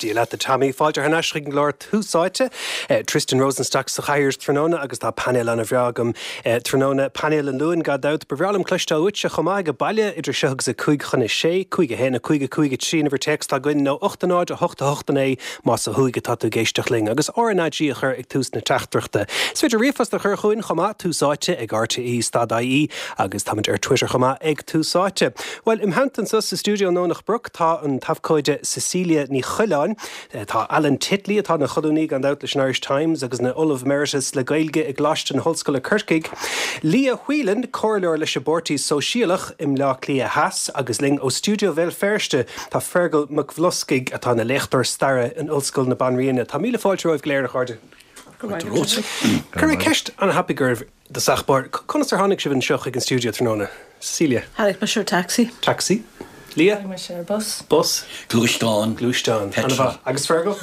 Dia leat a Tommy. Fáilte thar n-ais chuig an gclár Tús Áite. Tristan Rosenstock sa chathaoir tráthnóna agus tá painéal ana-bhreá agam tráthnóna. Painéal an Luain gan dabht. Ba bhreá liom cloisteáil uaitse chomh maith ag baile idir seo agus a 5 chun a 6, 5 1 5 5 3 an uimhir téacs atá againn nó 8 0 8 8 9 más ó thuaidh atá tú ag éisteacht linn agus RnaG a chur ag tús na teachtaireachta. Is féidir ríomhphost a chur chugainn chomh maith, Tús Áite ag rte stad ie agus táimid ar Twitter chomh maith ag Tús Áite. Bhuel, im theannta anseo sa stiúideo i nDomhnach Broc tá an t-abhcóide Cecilia Ní Choileáin, tá Alan Titley, atá ina cholúnaí gan dabht leis an Irish Times agus ina Ollamh Emeritus le Gaeilge i gColáiste na hOllscoile Corcaigh, Leah Whelan, comhairleoir leis an bPáirtí Sóisialach i mBleá Cliath Theas agus linn ó stiúideo Bhéal Feirste tá Feargal Mac Bhloscaigh atá ina léachtóir staire in Ollscoil na Banríona. Tá míle fáilte romhaibh go léir, a chairde. Cuirfidh mé ceist an-thapaidh oraibh. I dtosach báire, conas ar tháinig sibh anseo chuig an stiúideo tráthnóna? Cecilia. Tháinig mise ar taxi. Taxi. Leah. Tháinig mise ar bus. Bus. Gluaisteán. Gluaisteán. Ana-mhaith. Agus Fergal?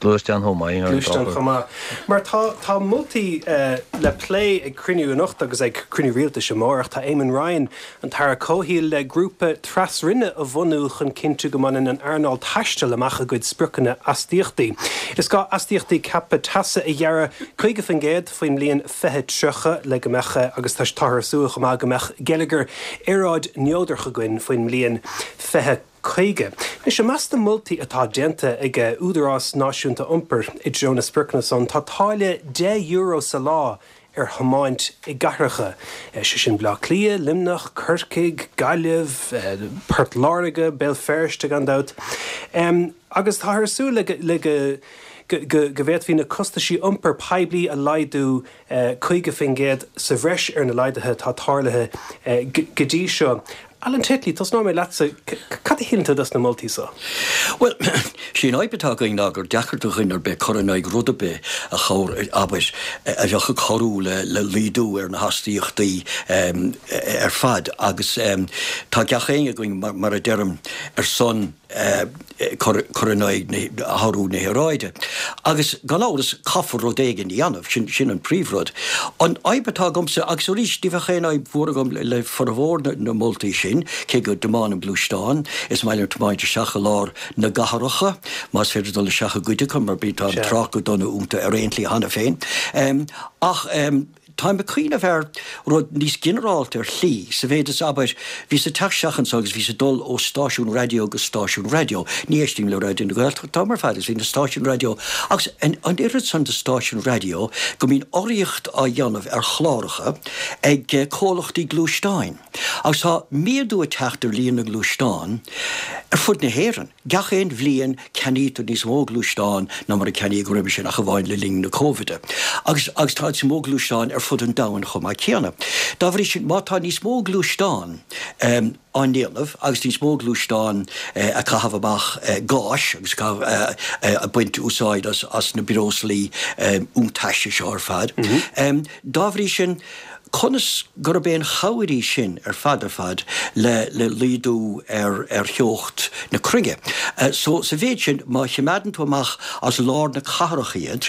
Gluaisteán chomh maith, ar an Gluaisteán chomh maith. Mar tá, tá moltaí le plé ag cruinniú anocht agus ag cruinniú rialtais amárach. Tá Eamon Ryan, an tAire Comhshaoil, le grúpa tras-roinne a bhunú chun cinntiú go mbaineann an earnáil taistil amach a gcuid spriocanna astaíochtaí. Is gá astaíochtaí ceaptha teasa a ghearradh 50% faoin mbliain 2030 le go mbeadh, agus táthar ag súil chomh maith go mbeadh geilleagar aeráid-neodrach againn faoin mbliain 2050. Anois, i measc na moltaí atá déanta ag Údarás Náisiúnta Iompair i dtreo na spriocanna san, tá táille €10 sa lá ar thiomáint i gcathracha, sé sin Baile Átha Cliath, Luimneach, Corcaigh, Gaillimh, Port Láirge, Béal Feirste gan dabht. Agus táthar ag súil le go go bhféadfaí na costaisí iompair poiblí a laghdú 50% sa bhreis ar na laghduithe atá tarlaithe go dtí seo. Alan Titley, tosnóidh mé leatsa, cad a shíleann tú dos na moltaí so? Bhuel, sé an fhadhb atá againn ná gur deacair do dhuine ar bith cur in aghaidh rud ar bith a chabhair, abair, a bheadh ag cabhrú le laghdú ar na hastaíochtaí ar fad agus tá gach éinne againn, mar a deirim, ar son cur in aghaidh athrú na haeráide. Agus gan amhras caithfear rud éigin a dhéanamh, sin sin an príomhrud. An fhadhb atá agamsa, agus arís ní bheadh aon fhadhb mhór agam le formhór na moltaí sin, cé go dtiománaim gluaisteán, is maith liom tiomáint isteach i lár na gcathracha, más féidir dul isteach i gcuid acu mar bíonn tá an trácht go dona iontu ar aon tslí cheana féin. Ach. Táim ag cuimhneamh ar rud níos ginearálta ar shlí, sa mhéid is, abair, bhíos ag teacht isteach anseo agus bhíos ag dul ó stáisiún raidió go stáisiún raidió. Ní éistím le Raidió na Gaeltachta an t-am ar fad agus bhí na stáisiúin raidió agus an oiread san de stáisiúin raidió go mbíonn urraíocht á dhéanamh ar chláracha ag comhlachtaí gluaisteáin. Agus tá méadú ag teacht ar líon na ngluaisteán ar fud na hÉireann. Gach aon bhliain ceannaítear níos mó gluaisteán ná mar a ceannaíodh roimhe sin, ach amháin le linn na Cóivide. Agus agus tá níos mó gluaisteán ar fud an domhain chomh maith céanna. Dá bhrí sin, má tá níos mó gluaisteán á ndéanamh agus níos mó gluaisteán ag caitheamh amach gáis agus ag baint úsáid as na breoslaí iontaise seo ar fad, dá bhrí sin, Conas gurb aon chabhair í sin ar fad ar fad le le laghdú ar ar theocht na cruinne? So sa mhéid sin, má choimeádann tú amach as lár na cathrach iad,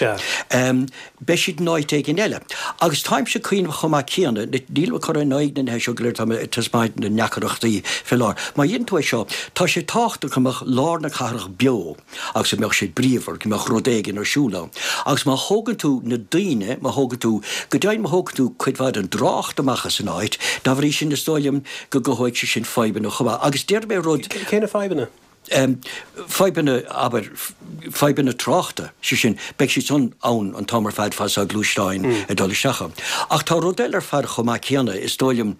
beidh siad in áit éigin eile. Agus táimse ag cuimhneamh chomh maith céanna, nílim ag cur in aghaidh na nithe seo go léir, tá mé ag taispeáint na ndeacaireachtaí fé láthair. Má dhéanann tú é seo, tá sé tábhachtach go mbeadh lár na cathrach beo. agus go mbeadh sé bríomhar, go mbeadh rud éigin ar siúl ann. Agus má thógann tú na daoine, má thógann tú, go deimhin má thógann tú cuid mhaith den dtrácht amach as an áit, dá bhrí sin is dóigh liom go gcothóidh sé sin fadhbanna chomh maith. Agus déarfaidh mé rud. Cé na fadhbanna? Fadhbanna, abair, fadhbanna tráchta, sé sin, beidh siad san ann an t-am ar fad fad is atá gluaisteáin ag dul isteach ann. Ach tá rud eile ar fad chomh maith céanna, is dóigh liom,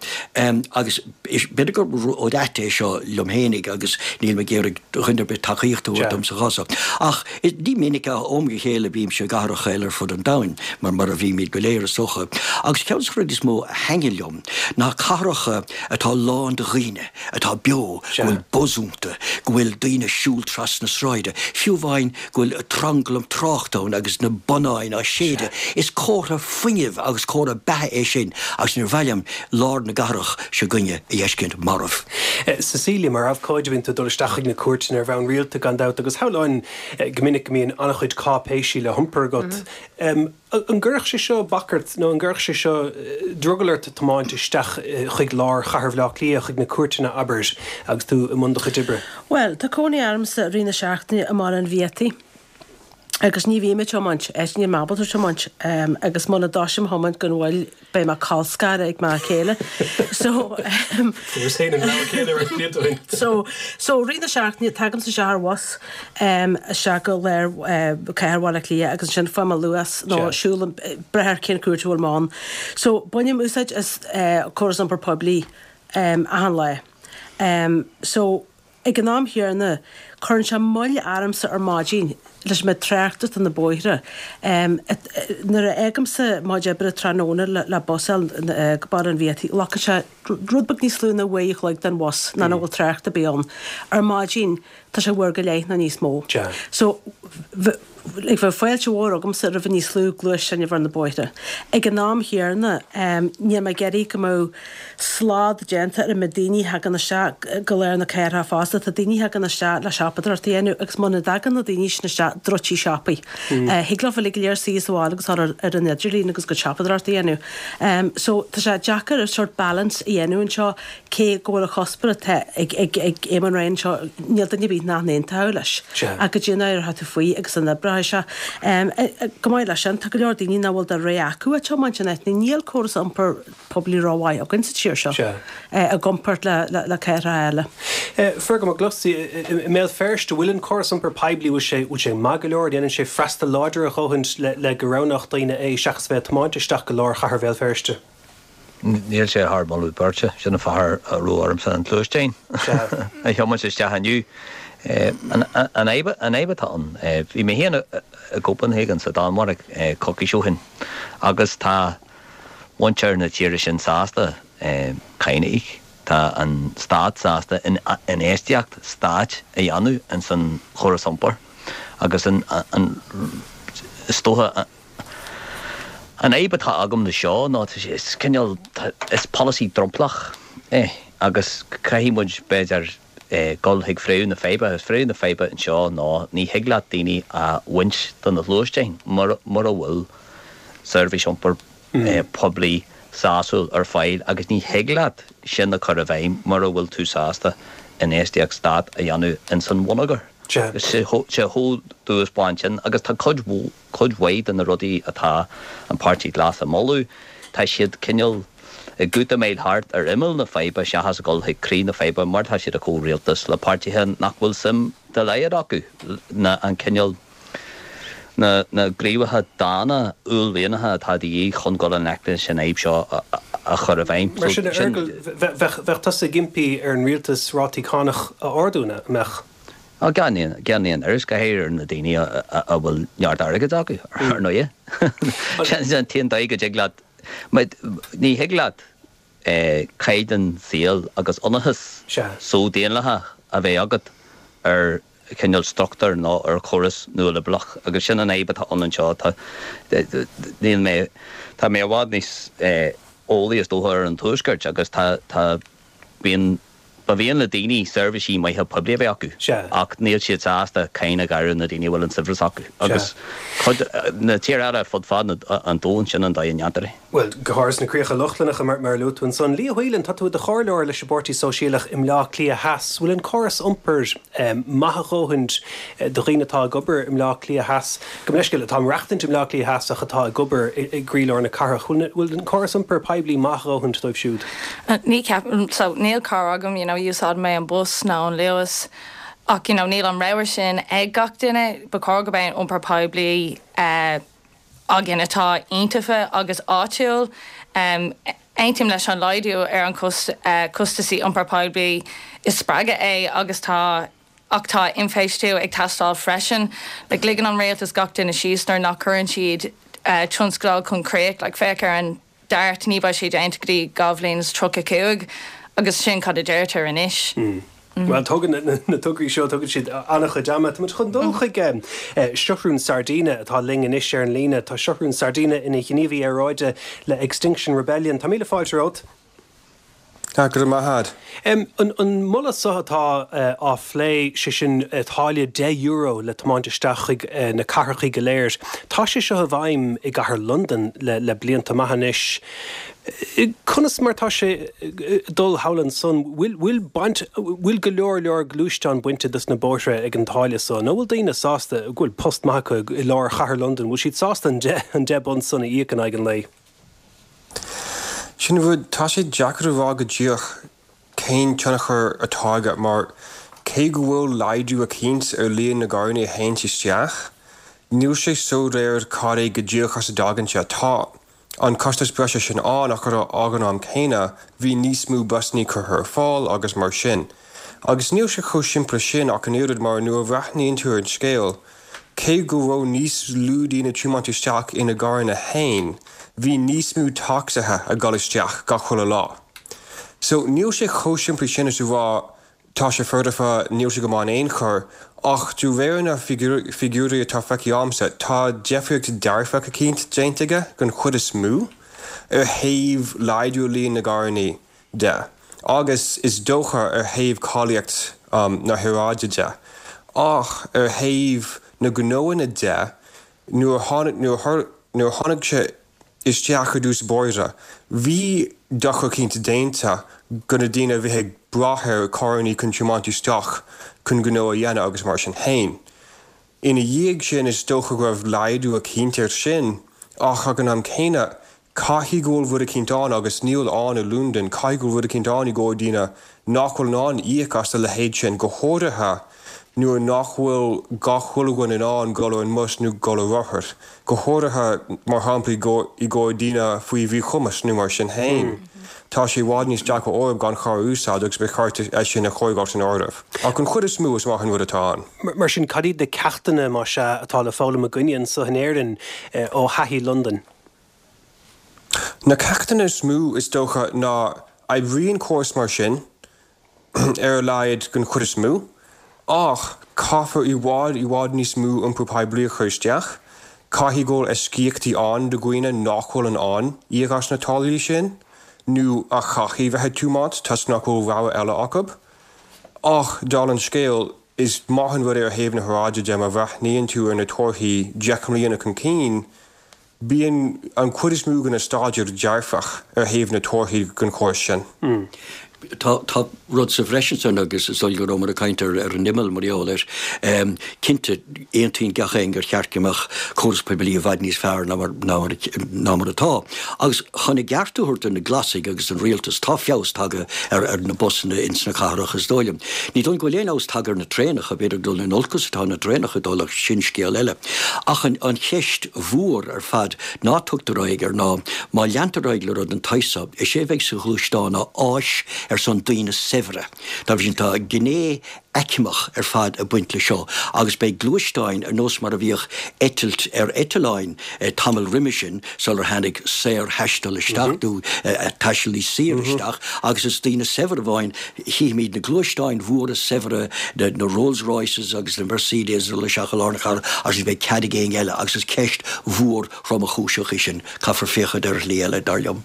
agus B'fhéidir gur rud ait é seo liom fhéinig agus nílim ag iarraidh dhuine ar bith tacaíocht a thabhairt dom sa chás seo. Ach ní minic ach ó am go chéile bímse i gcathracha eile ar fud an domhain, mar mar a bhímid go léir is dócha. Agus ceann de na rudaí is mó a thaitníonn liom ná cathracha atá lán de dhaoine, atá beo, go bhfuil buzz iontu, go bhfuil daoine ag siúl trasna sráide, fiú amháin go bhfuil tranglam tráchta ann agus na bonnáin á séideadh. Is comhartha fuinnimh agus comhartha beatha é sin agus níor mhaith liom lár na gcathrach seo againne a fheiscint marbh. Cecilia, mar abhcóide bíonn tú ag dul isteach chuig na cúirteanna ar bhonn rialta gan dabht agus shamhlóinn go minic go mbíonn an-chuid cáipéisí le hiompar agat. An gcuirfeadh sé seo bac ort nó an gcuirfeadh sé seo drogall ort tiomáint isteach chuig lár chathair Bhaile Átha Cliath, chuig na cúirteanna, abair, agus tú i mbun do chuid oibre? Bhuel, tá cónaí ormsa i rith na seachtaine i mBaile an Bhiataigh agus ní bhím ag tiomáint, níl mé ábalta tiomáint agus muna dtosaím a thiomáint gan mhoill beidh mé colscartha ag m'fhear céile. So Fuaireas féin an rogha céanna roinnt blianta ó shin. So so rith na seachtaine tagaimse isteach ar bhus isteach go lár cathair Bhaile Átha Cliath agus ansin faighim an Luas nó siúlaim brath ar cén cuairt a bhfuil mé ann. So bainim úsáid as córas iompair poiblí achan lá. So Ag an am chéanna, cuireann sé moill ormsa ar maidin leis an méid tráchta atá ar na bóithre. Nuair a fhágaimse mo chuid oibre tráthnóna le bus a fháil go Baile an Bhiataigh, glacann sé rud beag níos lú ná uair a chloig den bhus ná nach bhfuil trácht ar bith ann. Ar maidin, tá sé uair go leith nó níos mó. So. Like bheadh fáilte mhór agamsa roimh níos lú gluaisteáin a bheith ar na bóithre. Ag an am chéanna, níl mé ag iarraidh go mbeadh slad déanta ar an méid daoine a thagann isteach go lár na cathrach fosta. Tá daoine a thagann isteach le siopadóireacht a dhéanamh agus muna dtagann na daoine sin isteach, druidtí siopaí. Thig leo uilig go léir suí sa bhaile agus dul ar an idirlíon agus a gcuid siopadóireacht a dhéanamh. So tá sé deacair sort balance a dhéanamh anseo. Cé go bhfuil an cuspóir atá ag Eamon Ryan anseo, níl duine ar bith nach n-aontódh leis. Ach goidé an éireoidh tú faoi agus an oibreoidh sé. Chomh maith leis sin, tá go leor daoine nach bhfuil de rogha acu ach tiomáint in áit. Níl córas iompair poiblí rómhaith againn sa tír seo i gcomparáid le cathracha eile. Fergal McCluskey, i mBéal Feirste, bhfuil an córas iompair poiblí, bhfuil sé maith go leor, déanann sé freastal láidir a dhóthain le go roghnódh daoine é seachas bheith ag tiomáint isteach go lár chathair Bhéal Feirste? Níl sé thar moladh beirte, sin an fáth a raibh ormsa an gluaisteán a thiomáint isteach inniu. An fhadhb atá ann, bhí mé féin i gCopenhagen sa Danmhairg coicís ó shin agus tá muintir na tíre sin sásta cáin a íoc, tá an stát sásta infheistíocht stáit a dhéanamh ins an chóras iompair agus an is dócha An fhadhb atá agam le seo ná is cineál, is polasaí dromchlach é agus caithfidh muid b'fhéidir dul chuig fréamh na faidhbe agus fréamh na faidhbe anseo ná ní thig leat daoine a bhaint de na gluaisteáin mura bhfuil seirbhís iompair poiblí sásúil ar fáil agus ní thig leat sin a chur i bhfeidhm mura bhfuil tú sásta infheistíocht stát a dhéanamh ins an bhonneagar. Sé chomh dubh is bán sin agus tá cuid Cuid mhaith de na rudaí atá an Páirtí Glas a mholadh, tá siad cineál ag útamáil thart ar imeall na faidhbe seachas a dhul chuig croí na faidhbe mar tá siad i gcomhrialtas le páirtithe nach bhfuil suim dá laghad acu na an cineál na na gníomhartha dána uaillmhianacha atá de dhíth chun dul i ngleic leis an fhadhb seo a chur i bhfeidhm. Mar sin, a Fheargail, bheadh tusa ag impí ar an rialtas rátaí cánach a ardú, an mbeadh? Á, gan aon, gan aon amhras, go háirithe ar na daoine a bhfuil neart airgid acu, ar ndóighe. Sin an t-aon dóigh go dtig leat, ní thig leat caighdeán saoil agus ionracas só-daonlathach a bheith agat ar chineál struchtúr nó ar chóras nualiobrálach agus sin an fhadhb atá ann anseo. Tá, níl mé, tá mé i bhfad níos eolaí is dócha ar an Tuaisceart agus tá, tá, bíonn, Ba mhian le daoine seirbhísí maithe poiblí a bheith acu ach níl siad sásta cáin a ghearradh na daoine a bhfuil an saibhreas acu. Agus cuid, na tíortha eile fud fad an domhain, sin an dóigh a ndéantar é. Bhuel, go háirithe sna críocha Lochlannacha, mar a luaigh tú ansan. Liadh Whelan, tá tú i do chomhairleoir leis an bPáirtí Sóisialach i mBleá Cliath Theas. Bhfuil an córas iompair maith a dhóthain do dhaoine atá ag obair i mBleá Cliath Theas? Gabh mo leithscéal, atá ag maireachtaint i mBleá Cliath Theas ach atá ag obair i gcroílár na cathrach. Bhfuil an córas iompair poiblí maith a dhóthain dóibh siúd? Ní cheapaim, so níl carr agam, you know, úsáidim mé an bus nó an Luas ach you know níl an rogha sin ag gach duine. Ba chóir go mbeadh iompar poiblí againn atá iontaofa agus áitiúil. Aontaím leis an laghdú ar an costasaí iompar poiblí, is spreagadh é agus tá Ach tá infheistiú ag teastáil freisin. Like, ligeann an rialtas gach duine síos nuair nach cuireann siad tionscadail chun críoch. Like, féach ar an DART, ní beidh sé déanta go dtí 2035 agus sin cad a deirtear anois. Bhuel, tógann na tograí seo, tógann siad an-chuid ama. Tá muid chun dul chuig Seathrún Sardina atá linn anois ar an líne. Tá Seathrún Sardina ina ghníomhaí aeráide le Extinction Rebellion. Tá míle fáilte romhat. Go raibh maith a'd. An moladh seo atá á phlé, sé sin táille €10 le tiomáint isteach chuig na cathrachaí go léir, tá sé seo i bhfeidhm i gcathair Londan le blianta maith anois. Conas mar tá sé ag dul thall ansan? Bhfuil baint, bhfuil go leor leor gluaisteán bainte dos na bóithre ag an táille so? Nó bhfuil daoine sásta, go bhfuil post maith acu i lár chathair Londan, bhfuil siad sásta an £10 san a íoc in aghaidh an lae? Sin an rud, tá sé deacair a rá go díreach cén tionchar atá aige mar cé go bhfuil laghdú eicínt ar líon na gcarrannaí a théanns isteach, níl sé soiléir cad é go díreach as a dtagann sé. Tá an costas breise sin ann ach ag an am céanna bhí níos mó busannaí curtha ar fáil agus mar sin. Agus níl sé chomh simplí sin ach an oiread mar nuair a bhreathnaíonn tú ar an scéal, Cé go raibh níos lú daoine ag tiomáint isteach ina gcarranna fhéin, bhí níos mó tacsaithe ag dul isteach gach chuile lá. So, níl sé chomh simplí sin is a rá tá sé foirfe, níl sé go maith in aon chor, ach de réir na figiúirí atá feicthe a'msa, tá deifríocht dearfach eicínt déanta aige, den chuid is mó, ar thaobh laghdú líon na gcarrannaí. de, agus is dócha ar thaobh cáilíocht na haeráide de. Ach ar thaobh na gnóanna de, nuair a tháinig, nuair a tháinig sé isteach i dtús báire, bhí dochar eicínt déanta go na daoine a bhí ag brath ar carrannaí chun tiomáint isteach chun gnó a dhéanamh agus mar sin féin. Ina dhiaidh sin, is dócha go raibh laghdú eicínt air sin, ach ag an am céanna, caithfidh go bhfuil rud eicínt ann, agus níl ann i Londain, caithfidh go bhfuil rud eicínt ann i gcomhair daoine nach bhfuil in ann íoc as a leithéid sin, go háirithe nuair nach bhfuil gach chuile dhuine in ann dul ar an mbus nó dul ar rothar, go háirithe, mar shampla, i gcomhair daoine faoi mhíchumas nó mar sin féin. Tá sé i bhfad níos deacra orthu gan charr a úsáid agus ba cheart é sin a chur san áireamh. Ach an chuid is mó, is maith an rud atá ann. Mar sin, cad iad na ceachtanna, más ea, atá le foghlaim againne anso in Éirinn ó thaithí Londain? Na ceachtanna is mó, is dócha, ná oibríonn córas mar sin, ar a laghad den chuid is mó, ach caithfear i bhfad, i bhfad níos mó iompar poiblí a chur isteach. Caithfidh go bhfuil eisceachtaí ann do dhaoine nach bhfuil in ann íoc as na táillí sin, nó a chaithfidh bheith ag tiomáint toisc nach bhfuil rogha eile acu. Ach, dála an scéil, is maith an rud é ar thaobh na haeráide de má bhreathnaíonn tú ar na torthaí 10 mbliana chun cinn, Bíonn an chuid is mó de na staidéir dearfach ar thaobh na torthaí den chóras sin. Tá tá rud sa bhreis ansan agus is dóigh go rabhamar ag caint ar ar an imeall mar gheall air. Cinnte, aontaíonn gach éinne gur cheart go mbeadh córas poiblí i bhfad níos fearr ná mar ná mar ná mar atá. Agus chun a gceart a thabhairt do na Glasaigh agus don rialtas, tá feabhas tagtha ar ar na busanna ins na cathracha is dóigh liom. Ní dóigh liom go bhfuil aon fheabhas tagtha ar na traenacha, b'fhéidir dul in olcas atá na traenacha ag dul ach sin scéal eile. Ach an an cheist mhór ar fad ná tugtar aghaidh air ná, má leantar ar aghaidh le rud den tsaghas so, is é a bheidh sa ghluaisteán ná áis ar son daoine saibhre. Dá bhrí sin, tá gné aicmeach ar fad ag baint le seo agus beidh gluaisteáin ar nós mar a bhíodh eitilt ar eitleáin tamall roimhe sin sular tháinig saorthaisteal isteach nó taisteal níos saoire isteach agus is daoine saibhre amháin Chífimid na gluaisteáin mhóra saibhre, na Rolls Royces agus na Mercedes ag dul isteach i lár na cathrach agus ní bheidh cead ag éinne eile agus is ceist mhór thromchúiseach í sin. Caithfear féachaint ar shlí eile, dar liom.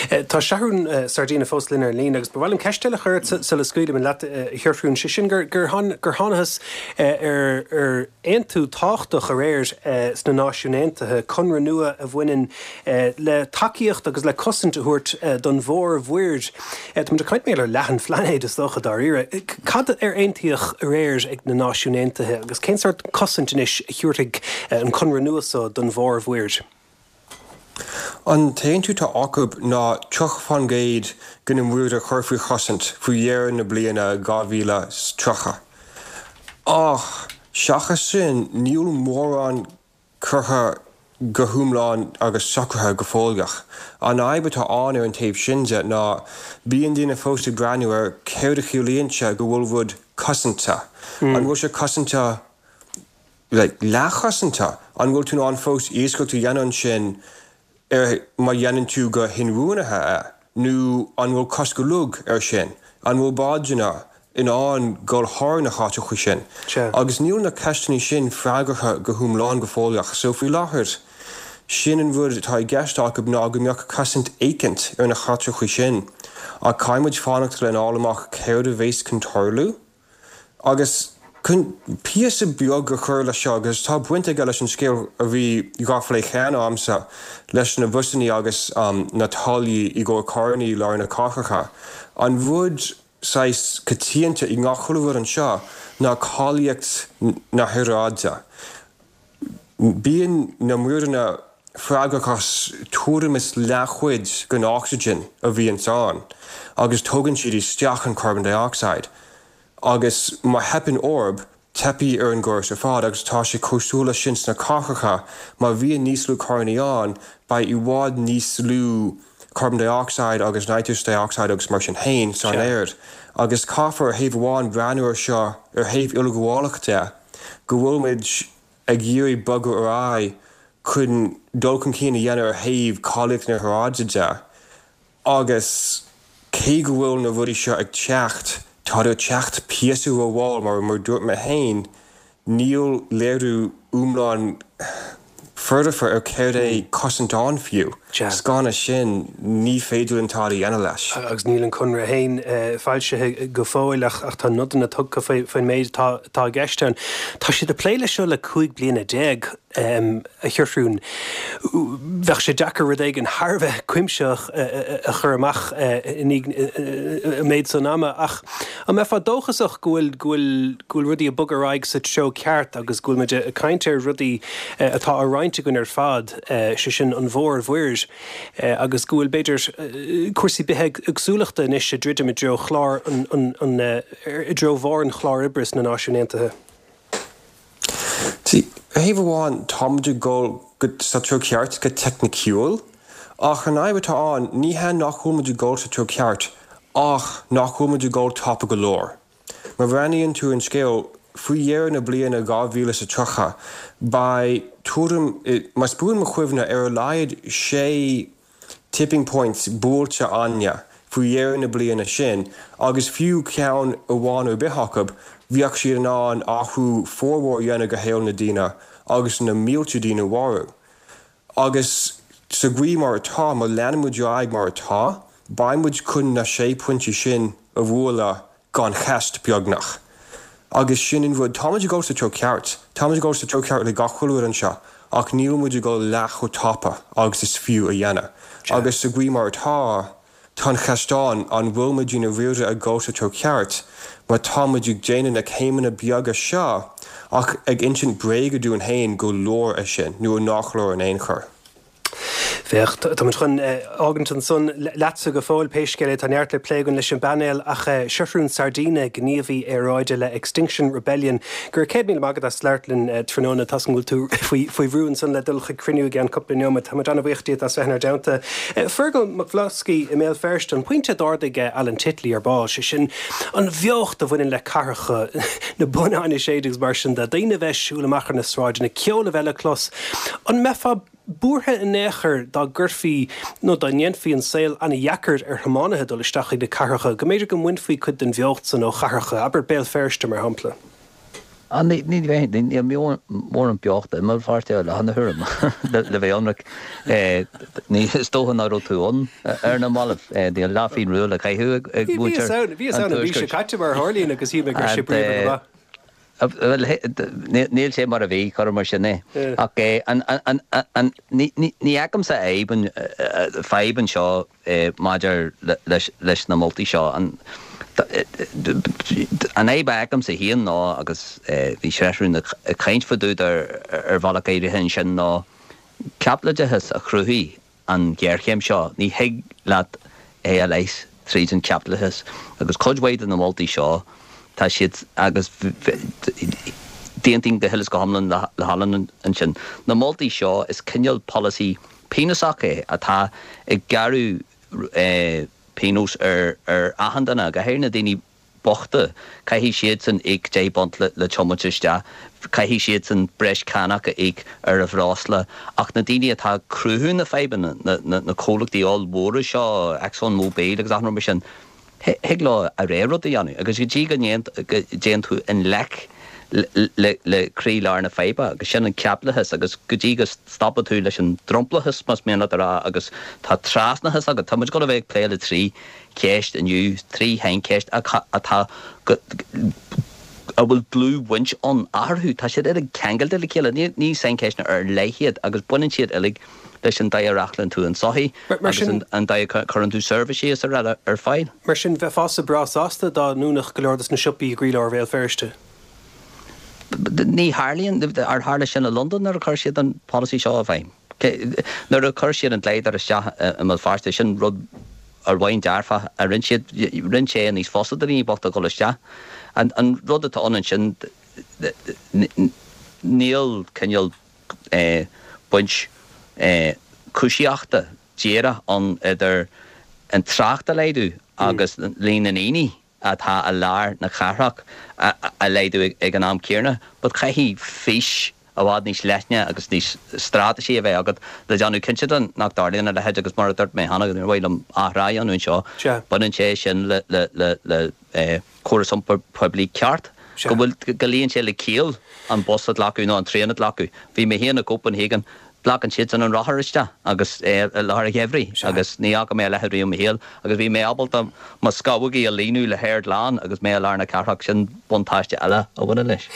Tá Seathrún Sardina fós linn ar an líne agus ba mhaith liom ceist eile a chur ort sula scaoilim leat, a Sheathrúin, sé sin gur thángthas ar aontú tábhachtach aréir sna Náisiúin Aontaithe, conradh nua a bhaineann le tacaíocht agus le cosaint a thabhairt don mhórmhuir. Táimid ag caint mar gheall ar leath an phláinéid, is dócha, dáiríre. Cad ar aontaíodh aréir ag na Náisiúin Aontaithe agus cén sórt cosaint anois a thabharfaidh an conradh nua so don mhórmhuir? An t-aontú atá acu ná 30% de na muir a chur faoi chosaint faoi dheireadh na bliana 2030. Ach seachas sin, níl mórán curtha go hiomlán agus socraithe go fóilleach. An fhadhb atá ann ar an taobh sin de ná bíonn daoine fós ag breathnú ar céard a chiallaíonn sé go bhfuil rud cosanta. An bhfuil sé cosanta like leathchosanta? An bhfuil tú in ann fós iascaireacht a dhéanamh ansin ar má dhéanann tú go hinbhuanaithe é? Nó an bhfuil cosc uilig air sin? An bhfuil bádanna in ann dul thar na háiteacha sin? Agus níl na ceisteanna sin freagartha go hiomlán go fóilleach. So faoi láthair, sin an rud atá i gceist acu ná go mbeadh cosaint éicint ar na háiteacha sin. Ach caithfidh muid fanacht lena fháil amach céard a bhéas chun tarlú. Agus chun píosa beag a chur leis seo, agus tá baint aige leis an scéal a bhí dhá phlé cheana a'msa, leis na busannaí agus na táillí i gcomhair carrannaí i lár na cathracha, an rud saghas coitianta i ngach chuile rud anseo ná cáilíocht na haeráide. Bíonn na muireanna freagrach as tuairim is leathchuid den ocsaigin a bhíonns ann agus tógann siad isteach an carbon dioxide agus má theipeann orb, teipfidh ar an gcóras ar fad agus tá sé cosúil leis sin sna cathracha, má bhíonn níos lú carrannaí ann, beidh i bhfad níos lú carbon dioxide agus nitrous dioxide agus mar sin féin san aer agus caithfear ar thaobh amháin breathnú ar seo ar thaobh uileghabhálach de. go bhfuil muid ag iarraidh bogadh ar aghaidh chun dul chun cinn a dhéanamh ar thaobh cáilíocht na haeráide de agus cé go bhfuil na rudaí seo ag teacht, táid ag teacht píosa rómhall mar mar dúirt mé féin, níl léiriú iomlán foirfe ar céard é cosaint ann fiú. 'S gan é sin, ní féidir linn tada a dhéanamh leis. Agus níl an conradh féin foilsithe go fóill ach tá nodanna tugtha faoin méid atá i gceist ann. Tá siad ag plé leis seo le 15 bliana, a Sheathrúin. Bheadh sé deacair rud éigin thar a bheith cuimsitheach a chur amach i ndiaidh an méid san ama ach an mbeifeá dóchasach go bhfuil go bhfuil go bhfuil rudaí ag bogadh ar aghaidh sa treo ceart agus go bhfuil muid ag caint ar rudaí atá á roinnt againn ar fad, sé sin an mhórmhuir, agus go bhfuil, b'fhéidir, cúrsaí bithéagsúlachta anois ag druidim i dtreo chlár an, an, i dtreo bharr an chláir oibre sna Náisiúin Aontaithe. See, ar thaobh amháin, tá muid ag dul go, sa treo ceart go teicniciúil, ach an fhadhb atá ann, ní hea nach bhfuil muid ag dul sa treo ceart ach nach bhfuil muid ag dul tapa go leor. Má bhreathnaíonn tú ar an scéal, faoi dheireadh na bliana 2030, beidh tuairim, más buan mo chuimhne, ar a laghad sé tipping points buailte againne faoi dheireadh na bliana sin agus fiú ceann amháin ar bith acu, bheadh siad in ann athrú formhór a dhéanamh go shaol na daoine agus na mílte daoine a mharú. Agus sa gcaoi mar atá, má leanann muid ar aghaidh mar atá, beidh muid chun na sé pointí sin a bhualadh gan cheist, beagnach. Agus sin an rud, tá muid ag dul sa treo ceart, tá muid ag dul sa treo ceart le gach chuile rud anseo, ach níl muid ag dul leath chomh tapa agus is fiú a dhéanamh. Agus sa gcaoi mar atá, Tá an cheist ann, an bhfuil muid i ndáiríre ag dul sa treo ceart má tá muid ag déanamh na céimeanna beaga seo ach ag insint bréaga dúinn féin go leor é sin nó nach leor in aon chor? Féach, tá muid chun fhágaint ansan leatsa go fóill, pé scéal é, tá neart le plé againn leis an bpainéal ach Seathrún Sardina, gníomhaí aeráide le Extinction Rebellion, go raibh 100,000 maith agat as labhairt linn tráthnóna. Tá's agam go bhfuil tú faoi faoi bhrú ansan le dul chuig cruinniú i gceann cúpla neomat. Tá muid an-bhuíoch díot as bheith inár dteannta. Fergal Mac Bhloscaidh i mBéal Feirste, an pointe a d'ardaigh Alan Titley ar ball, sé sin an bheocht a bhaineann le cathracha, na bonnáin ag séideadh agus mar sin de, daoine a bheith ag siúl amach ar na sráideanna, ceol a bheith le clos. An mbeifeá buartha in aon chor dá gcuirfí nó dá ndéanfaí an saol an-dheacair ar thiománaithe dul isteach chuig na cathracha, go mb'fhéidir go mbainfí cuid den bheocht san ó chathracha, abair Béal Feirste mar shampla? Ní bheinn, níl mórán beochta i mBéal Feirste i láthair na huaire, le bheith ionraic. Is dócha nach raibh tú ann ar na mallaibh. Níl leathphingin rua le caitheamh ag muintir an Tuaiscirt. Bhíos ann an mhí seo caite mar a tharlaíonn agus shíl mé go raibh sé bríomhar go maith. Bhuel, níl sé mar a bhí, cuir mar sin é. Ach ní fheicimse fadhb anseo maidir leis na moltaí seo. An fhadhb a fheicimse féin ná, agus bhí Seathrún ag caint fá dtaobh de ar bhealach áirithe ansin, ná caipitleachas a chruthaigh an ghéarchéim seo. Ní thig leat é a leigheas tríd an chaipitleachas. Agus cuid mhaith de na moltaí seo, tá siad, agus d'aontaím go huile is go hiomlán le hAlan ansin, na moltaí seo, is cineál polasaí pionósach é atá ag gearradh pionós ar achan duine, go háirithe na daoine bochta, caithfidh siadsan íoc £10 le tiomáint isteach, caithfidh siadsan breis cánach a íoc ar a bhreosla, ach na daoine atá ag cruthú na fadhbanna, na comhlachtaí ollmhóra seo, Exxon Mobil agus achan rud mar sin, thig leo a rogha rud a dhéanamh agus go dtí go dtéann tú i ngleic. le croílár na faidhbe agus sin an caipitleachas agus go dtí go stopann tú leis an dromchlachas más mian leat a rá agus tá trasnachas agat, tá muid ag dul a bheith ag plé le trí cheist inniu, trí shaincheist atá go a bhfuil dlúthbhaint ann eatarthu, tá siad uilig ceangailte le chéile, ní saincheisteanna ar leith iad agus baineann siad uilig leis an dóigh a reáchtálann tú an tsochaí agus an dóigh a chuireann tú seirbhísí is araile ar fáil. Mar sin, bheifeása breá sásta dá ndúnfadh go leor dos na siopaí i gcroílár Bhéal Feirste? Ní tharlaíonn. Ar tharla sin i Londain nuair a chuir siad an polasaí seo i bhfeidhm? Nuair a chuir siad an glider isteach i mBéal Feirste, sin rud ar bhonn dearfach a rinne siad, rinne sé níos fusa do dhaoine bochta dul isteach. An rud atá ann ansin, níl cineál baint cúisíochta díreach ann idir an trácht a laghdú agus líon na ndaoine atá i lár na cathrach a laghdú ag an am céanna. But caithfidh fís i bhfad níos leithne agus níos straitéisí a bheith agat le déanamh cinnte de nach dtarlaíonn a leithéid agus mar a dúirt mé cheana, níor mhaith liom athrá a dhéanamh anseo, baineann sé sin le le córas iompair poiblí ceart, go bhfuil, go luíonn sé le ciall an bus a ghlacadh nó an traein a ghlacadh. Bhí mé féin i gCopenhagen, glacann siadsan an rothar isteach agus i lár an gheimhridh agus ní fhaca mé a leithéid riamh i mo shaol agus bhí mé ábalta mo scamhógaí a líonadh le haer glan agus mé i lár na cathrach, sin buntáiste eile a bhaineann leis.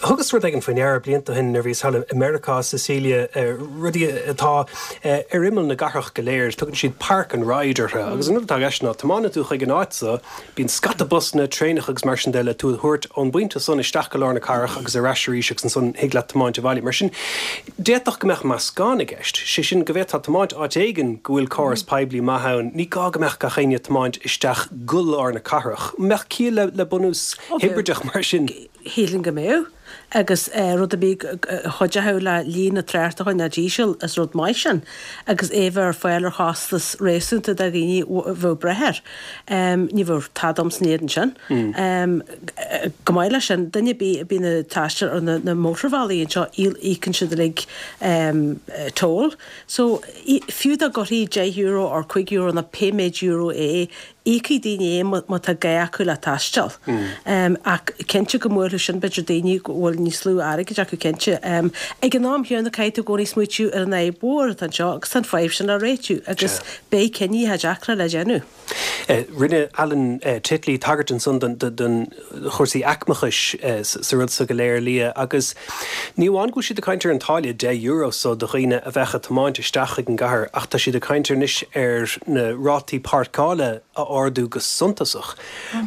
Thugas rud éigin faoi ndeara blianta ó shin nuair a bhíos thall i Meiriceá, Cecilia, rudaí atá ar imeall na gcathrach go léir, tugann siad park and ride orthu agus an rud atá i gceist ná tiomáineann tú chuig an áit so, Bíonn scata busanna, traenacha agus mar sin de le tú a thabhairt ón bpointe san isteach go lár na cathrach agus ar ais arís agus ansan thig leat tiomáint abhaile. Mar sin, d'fhéadfadh go mbeadh meascán i gceist, sé sin go bhféadfá tiomáint áit éigin go bhfuil córas poiblí maith ann, ní gá go mbeadh gach éinne ag tiomáint isteach go lár na cathrach. An mbeadh ciall le bunús hibrideach mar sin? Shílfinn go mbeadh. Agus rud ar bith a chuideochadh le líon na tráchta a choinneáil íseal, is rud maith sin. Agus é bheith ar fáil ar chostas réasúnta do dhaoine a bheadh breith air. Ní bheadh tada agam san éadan sin. Chomh maith leis sin, duine ar bith a bhíonn ag taisteal ar na mótarbhealaí anseo, íocann siad uilig toll. So, fiú dá gcuirfí €10 or €5 nó pé méid euro é, Íocfaidh daoine é má tá gá acu le taisteal. Ach cinnte go mbuailfeadh sin b'fhéidir daoine go bhfuil níos lú airgid acu cinnte. Ag an am chéanna caithfidh tú i gcónaí smaoitiú ar an fhadhb mhór atá anseo agus tá an fadhb sin le réitiú agus beidh cinntí deacra le déanamh. Rinne Alan Titley tagairt ansan don chúrsaí aicmeachais sa rud so go léir, Liadh, agus ní amháin go bhfuil siad ag caint ar an táille €10 so do dhaoine a bheadh ag tiomáint isteach chuig an gcathair ach tá siad ag caint anois ar na rátaí páirceála a ardú go suntasach.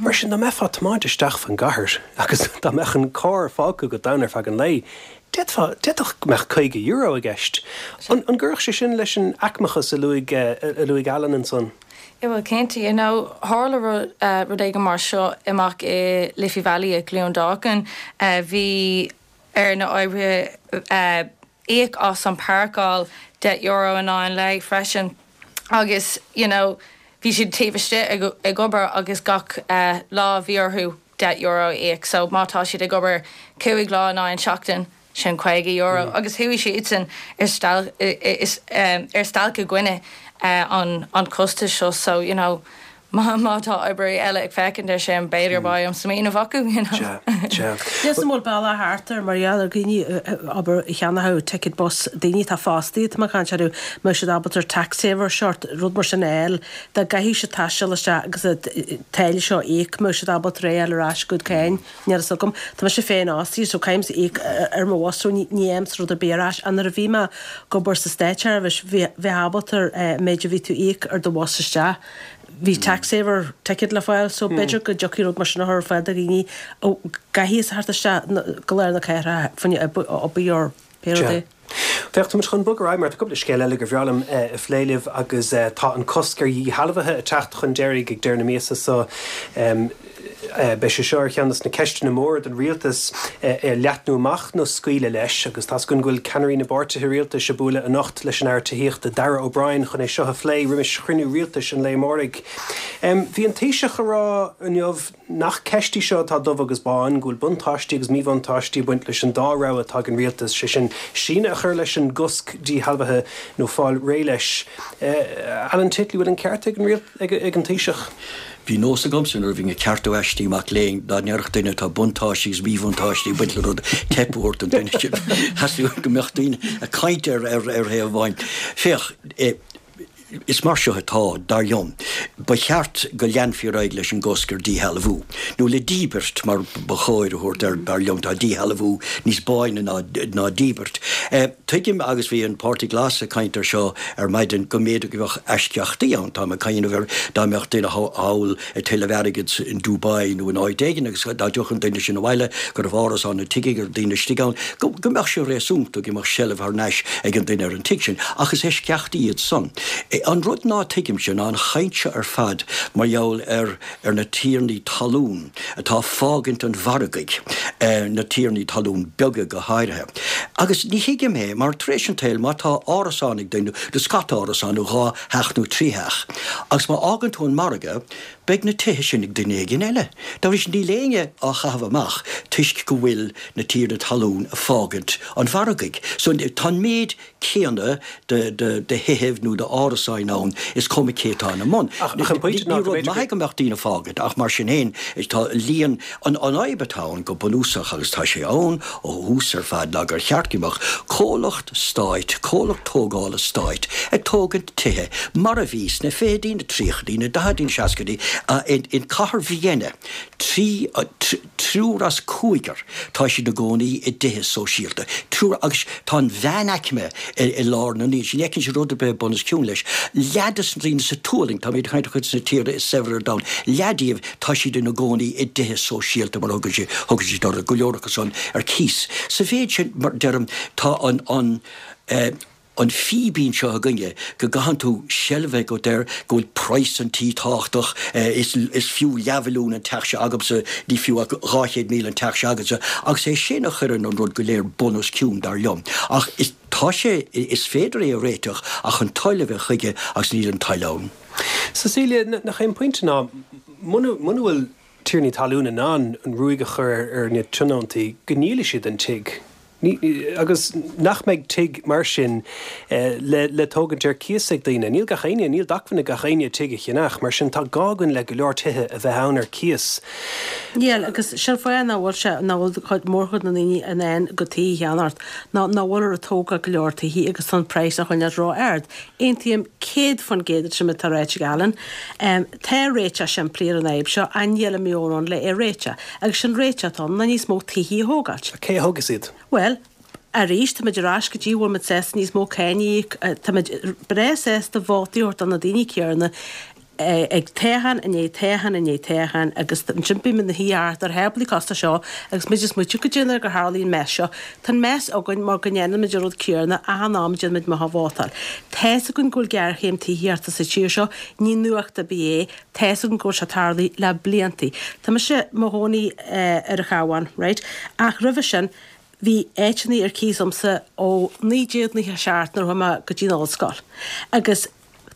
Mar sin, dá mbeifeá ag tiomáint isteach fan gcathair agus dá mbeadh an carr fágtha agat ann ar feadh an lae, d'fhéadfá, d'fhéadfadh go mbeadh €50 i gceist. An gcuirfeadh sé sin leis an aicmeachas a luaigh, a luaigh Alan ansan? Yeah bhuel cinnte, you know tharla rud, rud éigin mar seo amach i Liffey Valley i gCluain Dolcáin. Bhí ar na oibrithe íoc as an páirceáil €10 in aghaidh an lae freisin agus you know bhí siad taobh istigh ag ag obair agus gach lá bhí orthu €10 a íoc so má tá siad ag obair 5 lá in aghaidh an seachtain sin €50 agus chuaigh siadsan ar stailc ar stailc i gcoinne an chostais seo so you know má tá oibrithe eile ag féachaint ar sin b'fhéidir beidh an smaoineamh acu you know. Sea, sea. Níl 's a'm an bhfuil bealach thart air mar gheall ar dhaoine abair a cheannódh ticket bus daoine atá fostaithe tá mé ag caint orthu mbeadh siad ábalta ar TaxSaver sort rud mar sin a fháil dá gcaithfeadh siad taisteal isteach agus an táille seo a íoc mbeadh siad ábalta é a fháil ar ais go cáin. Níl a fhios agam. Tá mise féin fhostaithe so caithimse íoc ar mo bhus so ní fhaighimse rud ar bith ar ais. Ach nuair a bhí mé ag obair sa státseirbhís bhí bheifeá ábalta an méid a bhí tú íoc ar do bhus isteach bhí TaxSaver ticket le fáil so b'fhéidir go dtiocfaidh rud mar sin a chur ar fáil do dhaoine a gcaithfidh a theacht isteach go lár na cathrach fá choinne obair or pé rud é. Féach, tá muid chun bogadh ar aghaidh mar tá cúpla scéal eile gur bhreá liom a phlé libh agus tá an cosc ar dhíshealbhuithe ag teacht chun deiridh ag deireadh na míosa so. Beidh sé seo ar cheann de na ceisteanna móra don rialtas, é a leathnú amach nó scaoileadh leis agus tá's againn go bhfuil ceannairí na bpáirtithe rialtais ag bualadh anocht leis an Aire Tithíochta Darragh O'Brien chun é seo a phlé roimis chruinniú rialtais an lae amáirigh. Bhí an Taoiseach ag rá inniu Nach ceist í seo atá dubh agus bán, go bhfuil buntáistí agus míbhuntáistí ag baint leis an dá rogha atá ag an rialtas, sé sin, síneadh a chur leis an gcosc díshealbhaithe nó fáil réidh leis. Alan Titley, bhfuil an ceart ag an ag an Taoiseach? Bhí nós agamsa nuair a bhínn ag ceartú aistí mac léinn, dá ndéarfadh duine tá buntáistí agus míbhuntáistí ag baint le rud, teip a thabhairt don duine sin. Theastaigh go mbeadh daoine ag caint ar thaobh amháin. Féach, is mar seo atá, dar liom. Ba cheart go leanfaí ar aghaidh leis an gcosc ar díshealbhú, nó le díbirt mar ba chóir a thabhairt air, dar liom. Tá díshealbhú níos báine ná díbirt. Tuigim, agus bhí an Páirtí Glas ag caint air seo ar maidin, go mb'fhéidir go mbeadh eisceachtaí ann. Táim ag cuimhneamh ar dá mbeadh duine thall ag tuilleamh airgid in Dubai nó in áit éigin agus dá dtiocfadh an duine sin abhaile go raibh árasán nó tigh ag daoine istigh ann, go mbeadh sé réasúnta go mbeadh seilbh thar n-ais ag an duine ar an tigh sin. Ach is eisceachtaí iad san. An rud ná tuigimse ná an chaint seo ar fad mar gheall ar ar na tiarnaí talún atá ag fágaint an mhargaidh, na tiarnaí talún beaga go háirithe. Agus ní thuigim é, mar tar éis an tsaoil, má tá árasán ag duine, nó scata árasán, nó dhá theach nó trí theach, agus má fhágann tú an margadh, beidh na tithe sin ag duine éigin eile. Dá bhrí sin, níl éinne á chaitheamh amach toisc go bhfuil na tiarnaí talún ag fágaint an mhargaidh. So, tá an méid céanna de thithibh nó d'árasáin ann, is cuma cé atá ina mbun. Ní rud maith é go mbeadh daoine ag fágaint ach mar sin féin tá líon, an fhadhb atá ann go bunúsach agus tá sé ann ó thús ar fad ná gur cheart go mbeadh comhlacht stáit, comhlacht tógála stáit ag tógaint tithe mar a bhí sna fichidí, na tríochaidí, na daichidí, na seascaidí in cathair Vienna, Triúr as cúigear, tá siad ina gcónaí i dtithe sóisialta. Triúr, agus tá an mheánaicme i lár na ndaoine sin, ní fheiceann siad rud ar bith bun os cionn leis. Leath de na daoine sa tualann, táimid ag caint ar chuid de na tíortha is saibhre ar domhan, leath díobh, tá siad ina gcónaí i dtithe sóisialta, mar a thugann siad, thugann siad orthu, go leor acu san ar cíos. Sa mhéid sin, mar deirim, tá an, an, eh, an fíbín seo againne go gcaitheann tú seilbh a bheith agat air, go bhfuil praghas an tí tábhachtach, is is fiú leathmhilliún an teach seo agamsa, ní fiú ach 200,000 an teach seo agatsa, agus é sin a chuireann an rud go léir bun os cionn, dar liom. Ach is, tá sé, is féidir é a réiteach ach an toil a bheith chuige agus níl an toil ann. Cecilia, nach é an pointe ná, muna, muna bhfuil tiarnaí talún in ann an ruaig a chur ar na tionóntaí, go ndíolfaidh siad an tigh. Agus nach mbeidh tigh mar sin le tógaint ar cíos ag daoine. Níl gach éinne, níl d'acmhainn ag gach éinne tigh a cheannach, mar sin tá gá againn le go leor tithe a bheith ann ar cíos. Níl, agus sin fáth nach bhfuil sé, nach bhfuil cuid, mórchuid na ndaoine in ann a gcuid tithe a cheannacht, ná nach bhfuiltear ag tógáil go leor tithe agus tá an praghas á choinneáil ró-ard. Aontaím 100% leis an méid atá ráite ag Alan. Tá réiteach simplí ar an fhadhb seo ach níl an meon ann le é a réiteach. Agus sin réiteach atá ann ná níos mó tithí a thógáilt. Cé a thógfas iad? Bhuel, arís, táimid ar ais go dtí bhfuil muid sásta níos mó cáin a íoc, táimid breá sásta vótaí a thabhairt do na daoine céanna ag toghchán i ndiaidh toghcháin i ndiaidh toghcháin agus ansin bímid ina shuí thart ar tháblaí costais seo agus muid ag smaoitiú goidé an uair gur tharlaigh an mess seo. Tá an mess againn mar go ndéanaimid an rud céanna achan am a déanaimid amach a vótáil. Tá's againn go bhfuil géarchéim tithíochta sa tír seo, ní nuacht ar bith é, Tá's againn go bhfuil sé tarlaithe le bliantaí. Tá mise i mo chónaí ar an Chabhán, right? Ach roimhe sin, bhí áiteanna ar cíos agamsa ó 1997 nuair a chuaigh mé go dtí an ollscoil. Agus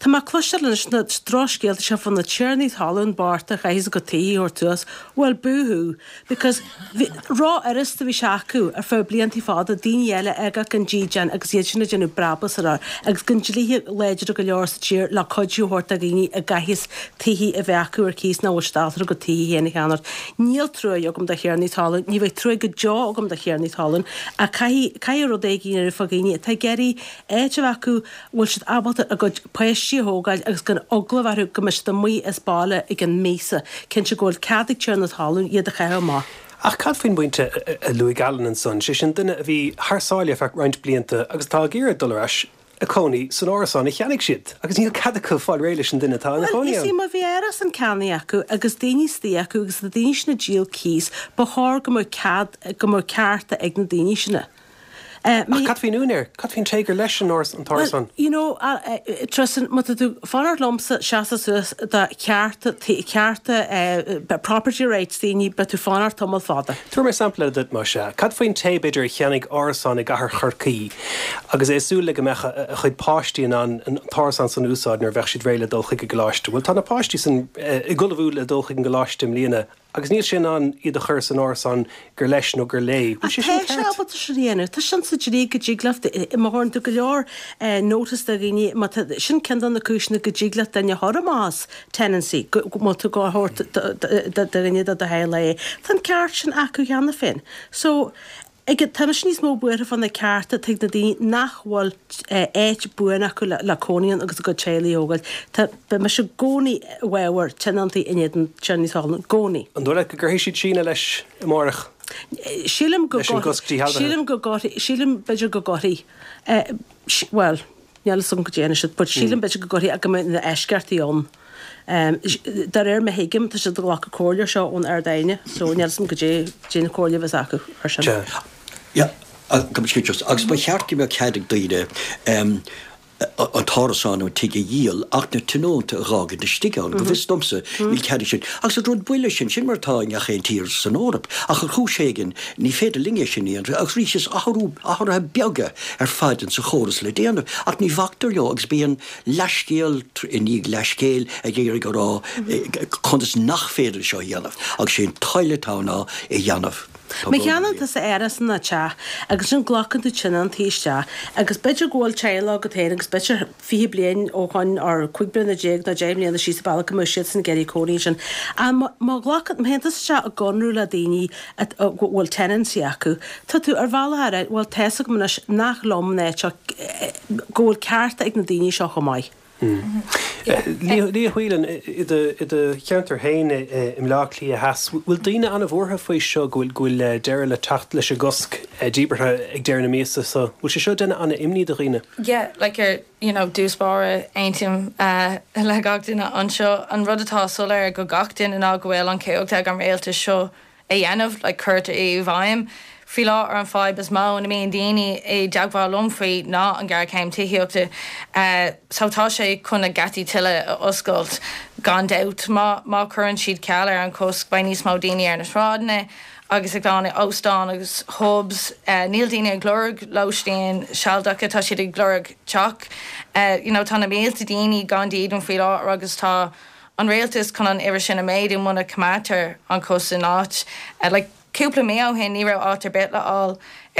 tá mé ag cloisteáil anois na drochscéalta seo fá na tiarnaí talún bochta a chaithfeas a gcuid tithe a thabhairt suas. Bhuel, boo-hoo! Because bhí, ró-fhurasta a bhí sé acu ar feadh bliantaí fada daoine eile a fhágáil gan dídean agus iad sin ag déanamh brabús air agus gan dlíthe láidre go leor sa tír le cuidiú a thabhairt do dhaoine a gcaithfeas tithe a bheith acu ar cíos nach bhfuil siad ábalta a gcuid tithe féin a cheannacht. Níl truaigh agam do thiarnaí talún, ní bheidh truaigh go deo agam do thiarnaí talún ach caithfidh, caithfidh rud éigin a dhéanamh fá dhaoine atá ag iarraidh áit a bheith acu bhfuil siad ábalta a gcuid páistí a thógáil agus gan eagla a bheith orthu go mbeidh siad amuigh as baile i gcionn míosa, cinnte go bhfuil cead ag tiarna talún iad a chaitheamh amach. Ach cad faoin bpointe a luaigh Alan ansan, sé sin duine a bhí thar sáile ar feadh roinnt blianta agus atá ag iarraidh dul ar ais a cónaí san árasán a cheannaigh siad agus níl cead acu fáil réidh leis an duine atá ina Bhuel, chónaí you see, ann. má bhí árasán ceannaithe acu agus daoine istigh acu agus na daoine sin ag díol cíos, ba chóir go mbeadh cead, go mbeadh cearta ag na daoine sin. Ach cad faoin úinéir? Cad faoin té gur leis an t-árasán? Well, you know, Tristan, má tá tú ag fanacht liomsa seasamh suas do chearta, cearta, property rights daoine, beidh tú ag fanacht tamall fada. Tabharfaidh mé sampla eile duit, más ea. Cad faoin té, b'fhéidir, a cheannaigh árasán i gcathair Chorcaí agus é ag súil le go mbeadh a chuid páistí in ann an t-árasán san a úsáid nuair a bheadh siad réidh le dul chuig an gcoláiste? Bhuel, tá na páistí san ag ullmhú le dul chuig an gcoláiste i mbliana. agus níl sé in ann iad a chur san árasán gur leis nó gur léi. Bhfuil sé sin ceart? Tá sé ábalta sin a dhéanamh. Tá sin sa dlí go dtig leat, má chuireann tú go leor notice do dhaoine, má tá, sin ceann de na cúiseanna go dtig leat duine a chur amach as tenancy, go, má tá tú á thabhairt do dhuine de do theaghlach é. Tá an ceart sin acu cheana féin. So, Ag, tá mise níos mó buartha fá na cearta atá ag na daoine nach bhfuil áit buan acu le cónaí ann agus a gcuid teaghlaigh a thógáil. Tá, beidh mise i gcónaí i bhfabhar tionóntaí in éadan tiarnaí talún, i gcónaí. An dóigh leat go gcuirfidh siad síneadh leis amárach? Sílim go Leis an gcosc díshealbhaithe? Sílim go gcuirfidh, sílim b'fhéidir go gcuirfidh. Bhuel, níl fhios agam cad é siad, but sílim b'fhéidir go gcuirfidh ach go mbeidh na eisceachtaí ann. De réir mar a thuigim, tá siad ag glacadh comhairle seo ón Ard-Aighne, so níl fhios agam cad é cén chomhairle a bheas acu ar sin. Yeah, agus ba cheart go mbeadh cead ag daoine an t-árasán nó an tigh a dhíol ach na tionónta a dh'fhágaint istigh ann. Go bhfios domsa, níl cead ag sin. Agus an rud buile sin, sin mar atá i ngach aon tír san Eoraip. Ach ar chúis éigin, ní féidir linn é sin a dhéanamh. Agus arís, is athrú, athruithe beaga ar fad insa chóras le déanamh. Ach ní bhactar leo agus bíonn leathscéal i ndiaidh leathscéil ag iarraidh a rá conas nach féidir seo a dhéanamh. Agus sé an toil atá ann ná é a dhéanamh. Tá Má cheannaíonn tusa árasán nó teach agus ansin glacann tú tionóntaí isteach agus b'fhéidir go bhfuil teaghlach agat féin agus b'fhéidir 20 bliain ó shoin or 15 bliana nó 10 mbliana síos an bealach go mbeadh siadsan ag iarraidh cónaí ansin. Ach má má ghlacann, má théann tusa isteach i gconradh le daoine a go bhfuil tenancy acu, tá tú ar bhealach a rá bhuel tá fhios agam anois nach liom an áit seo, go bhfuil cearta ag na daoine seo chomh maith. Liadh Whelan, i do cheantar féin i mBleá Cliath Theas, bhfuil daoine an-bhuartha faoi seo, go bhfuil deireadh le teacht leis an gcosc díbeartha ag deireadh na míosa so? Bhfuil sé seo ag déanamh an-imní do dhaoine? Yeah, like ar, you know, dtús báire, aontaím le gach duine anseo. An rud atá soiléir go gach duine ná go bhfuil an chumhacht ag an rialtas seo a dhéanamh, like cur i bhfeidhm. Faoi láthair an fadhb is mó ina mbíonn daoine i dteagmháil liom faoi ná an ghéarchéim tithíochta. So tá sé chun na geataí tuilleadh a oscailt gan dabht. Má má chuireann siad ceal ar an chosc beidh níos mó daoine ar na sráideanna agus ag dul in óstáin agus pubs. Níl daoine ag lorg lóistín sealadacha, tá siad ag lorg teach. You know tá na mílte daoine gan dídean faoi láthair agus tá an rialtas chun an uimhir sin a mhéadú muna coimeádtar an cosc in áit. Like, cúpla mí ó shin ní raibh áit ar bith le fháil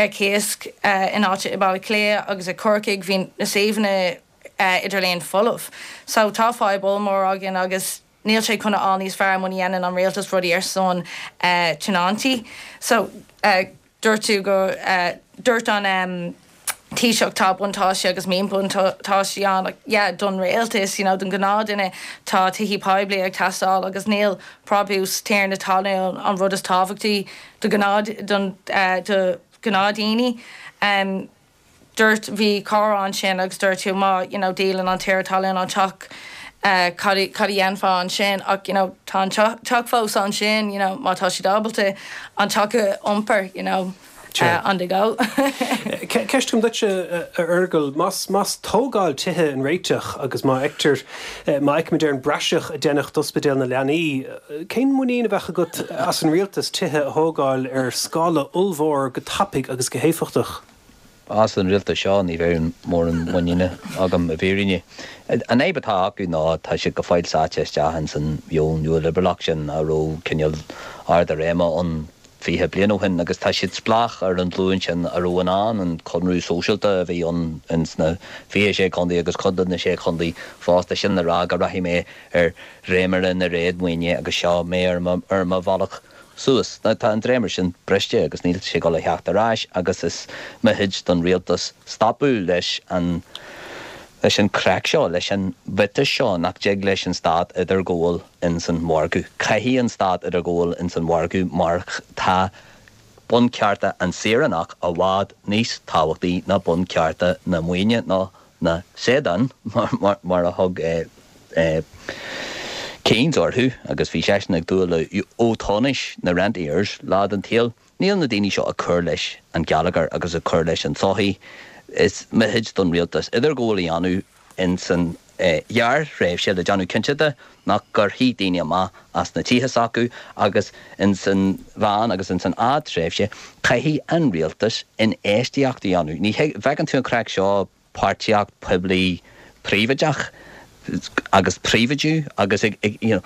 ar cíos in áit i mBaile Átha Cliath agus i Corcaigh bhí na suíomhanna idirlíon folamh. So tá fadhb ollmhór againn agus níl sé chun a fháil níos fearr muna dhéanann an rialtas rudaí ar son tionóntaí. So. Dúirt tú go, dúirt an Taoiseach tá buntáistí agus míbhuntáistí ann ach yeah don rialtas, you know don ghnáthduine tá tithí poiblí ag teastáil agus níl brabús tiarna talún an rud is tábhachtaí do ghnáth, don, do ghnáthdhaoine. Dúirt, bhí comhrá ansin agus dúirt tú má, you know, díolann an tiarna talún an teach, cad, cad a dhéanfá ansin ach, you know, tá an teach fós ansin, you know, má tá siad ábalta an teach a iompar, you know, on the go. Ceist agam duitse, a Fhearghail, más, más tógáil tithe an réiteach agus má fheictear, má fheicimid ar an bpraiseach a deineadh d'ospidéal na leanaí, cén muinín a bheadh agat as an rialtas tithe a thógáil ar scála ollmhór go tapaidh agus go héifeachtach? As an rialtas seo ní bheadh mórán muiníne agam i bhfírinne. An fhadhb atá acu ná tá siad go fóill sáite isteach ins an mheon nua-liobrálach sin a raibh cineál ard a réime ann 20 bliain ó shin agus tá siad spleách ar an ghlúin sin a raibh in ann an conradh sóisialta a bhí ann ins na 26 contae agus cuid de na sé chontae fosta sin le rá go rachaidh mé ar dhréimire na réadmhaoine agus seo mé ar mo bhealach suas. Now tá an dréimire sin briste agus níl sé ag dul a theacht ar ais agus is mithid don rialtas stopadh leis an leis an craic seo, leis an mhiotas seo nach dtig leis an stát idirghabháil ins an mhargadh. Caithfidh an stát idirghabháil ins an mhargadh mar tá bunchearta an saoránach i bhfad níos tábhachtaí ná bunchearta na maoine nó na seadán, mar a thug Keynes orthu, agus bhí seisean ag dúil le Eotóinis, na rentiers, lá den tsaol. Níl na daoine seo ag cur leis an gheilleagar agus ag cur leis an tsochaí. Is mithid don rialtas idirghabháil a dhéanamh ins an ghearrthréimhse le déanamh cinnte de nach gcuirfí daoine amach as na tithe s'acu agus ins an mheán agus ins an fhadtréimhse caithfidh an rialtas infheistíocht a dhéanamh. Ní bhfeiceann tú an craic seo páirtíocht poiblí príobháideach. Agus príobháidiú agus ag you know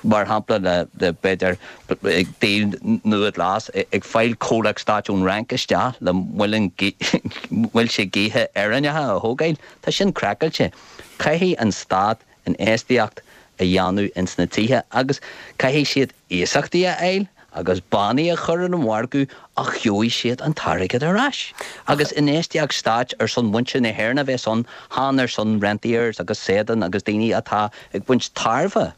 mar shampla le b'fhéidir ag díol nua glas ag fáil comhlacht stáit ón Fhrainc isteach le muileann muilte gaoithe Éireannacha a thógáil, tá sin craiceáilte. Caithfidh an stát infheistíocht a dhéanamh ins na tithe agus caithfidh siad iasachtaí a fháil agus bannaí a chur ar an mhargadh ach gheobhaidh siad an t-airgead ar ais. Agus infheistíocht stáit ar son mhuintir na hÉireann a bheas ann, chan ar son rentiers agus Sadan agus daoine atá ag baint tairbhe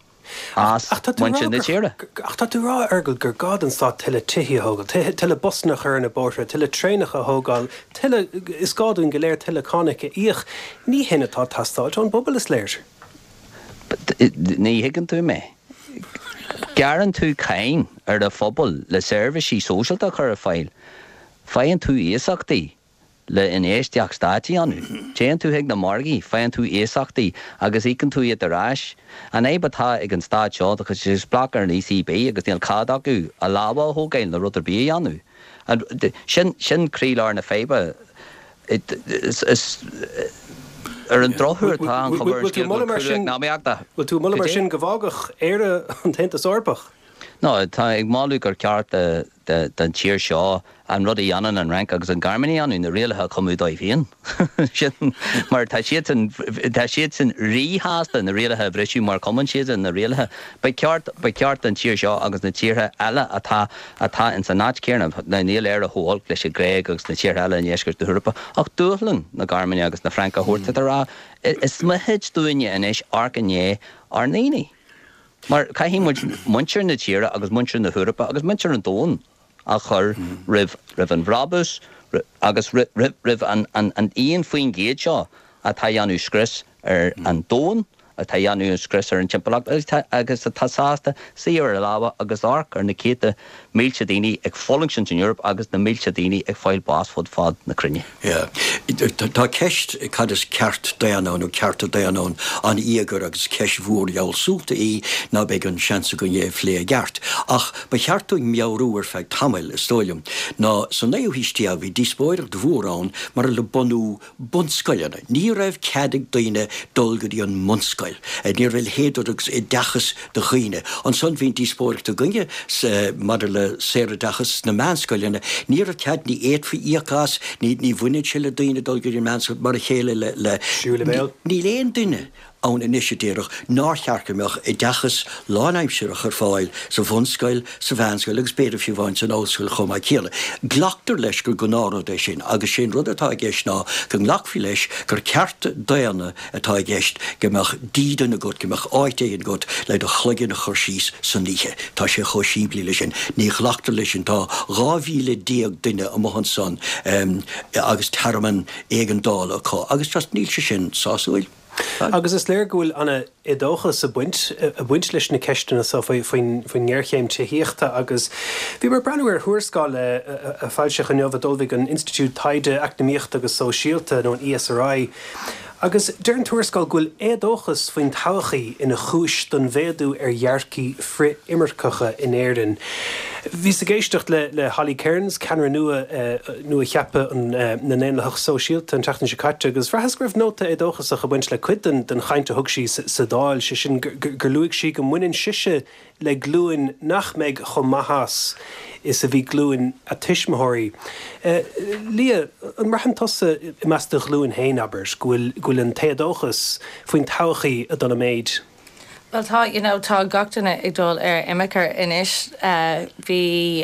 as muintir na tíre. Ach tá tú ag rá, a Fheargail, gur gá don stát tuilleadh tithí a thógáil, tuilleadh busanna a chur ar na bóithre, tuilleadh traenacha a thógáil, tuilleadh, is gá dúinn go léir tuilleadh cánach a íoc. Ní shin atá ag teastáilt ón bpobal, is léir. Ní thuigeann tú mé. Gearrann tú cáin ar an phobal le seirbhísí sóisialta a chur ar fáil. Faigheann tú iasachtaí le infheistíocht stáit a dhéanamh. Téann tú chuig na margaí, faigheann tú iasachtaí agus íocann tú iad ar ais. An fhadhb atá ag an stát seo, tá siad spleách ar an ECB agus níl cead acu a lámha a thógáil nó rud ar bith a dhéanamh. Sin, sin croílár na faidhbe. Is ar an drochuair tá an chuma ar an scéal go bhfuil cúlú eacnamaíochta. Bhfuil tú ag moladh mar sin go bhfágfadh Éire an tAontas Eorpach? No, tá ag moladh gur ceart don tír seo an rud a dhéanann an Fhrainc agus an Ghearmáin a dhéanamh, na rialacha a chumadh dóibh féin. Sin mar tá siadsan, tá siadsan ríshásta na rialacha a bhriseadh mar chumann siadsan na rialacha. Ba cheart, ba cheart don tír seo agus na tíortha eile atá, atá ins an áit chéanna, níl Éire chomh holc leis an Ghréig agus na tíortha eile i ndeisceart na hEorpa, ach dúshlán na Gearmáine agus na Fraince a thabhairt a rá, is mithid dúinne anois amharc i ndiaidh ár ndaoine. Mar caithfidh muid muintir na tíre agus muintir na hEorpa agus muintir an domhain a chur roimh, roimh an bhrabús agus roimh an, an, an 1% seo atá a dhéanamh scrios ar an domhan, atá a dhéanamh scrios ar an timpeallacht agus atá sásta suí ar a lámha agus amharc ar na céadta mílte daoine ag fulaingt san Eoraip agus na mílte daoine ag fáil bás fud fad na cruinne. Yeah. Tá ceist cad is ceart daonna ann nó cearta daonna ann an-íogair agus ceist mhór fhealsúnta í ná beidh an seans againn é a phlé i gceart. Ach ba cheart dúinn meabhrú ar feadh tamaill, is dóigh liom, ná sa naoú haois déag bhí díospóireacht mhór ann maidir le bunú bunscoileanna. Ní raibh cead ag daoine dul go dtí an mbunscoil. Ní raibh a leithéid de rud agus oideachas do dhaoine. Ansan bhí an díospóireacht againne maidir le saoroideachas sna meánscoileanna. Ní raibh cead, ní fhéadfaí íoc as, ní bhaineann sé le daoine dul go dtí an meánscoil mar a chéile le, níl aon duine ann anois a déarfadh nár cheart go mbeadh oideachas lánaimsearach ar fáil sa bhunscoil, sa mheánscoil agus b'fhéidir fiú amháin san ollscoil chomh maith céanna. Glactar leis gur gnáthrud é sin agus sé an rud atá i gceist ná go nglacfaí leis gur ceart daonna atá i gceist go mbeadh dídean agat, go mbeadh áit éigin agat le do chloigeann a chur síos san oíche. Tá sé chomh simplí leis sin. Ní ghlactar leis sin. Tá 12,000 duine amuigh ansan agus tearmann éigeandála acu agus just níl sé sin sásúil. Agus is léir go bhfuil an-éadóchas ag baint, ag baint leis na ceisteanna seo faoin ngéarchéim tithíochta agus bhíomar ag breathnú ar thuarascáil a foilsíodh inniu a d'ullmhaigh an Institiúid Taighde Eacnamaíochta agus Sóisialta, nó an ESRI, agus deir an tuarascáil go bhfuil éadóchas faoin todhchaí ina chúis don mhéadú ar dhearcthaí frith-imirceacha in Éirinn. Bhíos ag éisteacht le Holly Cairns, ceannaire nua nua-cheaptha na nDaonlathach Sóisialta an tseachtain seo caite agus bhraitheas go raibh nóta éadóchasach ag baint le cuid den chaint a thug sí sa Dáil, sé sin gur luaigh sí go mbaineann sise le glúin nach mbeidh chomh maith as is a bhí glúin a tuismitheoirí. Liadh, an mbraitheann tusa i measc do ghlúin féin, abair, go bhfuil an t-éadóchas faoin todhchaí ag dul i méid? Bhuel tá, you know, tá gach duine ag dul ar imirce anois. Bhí,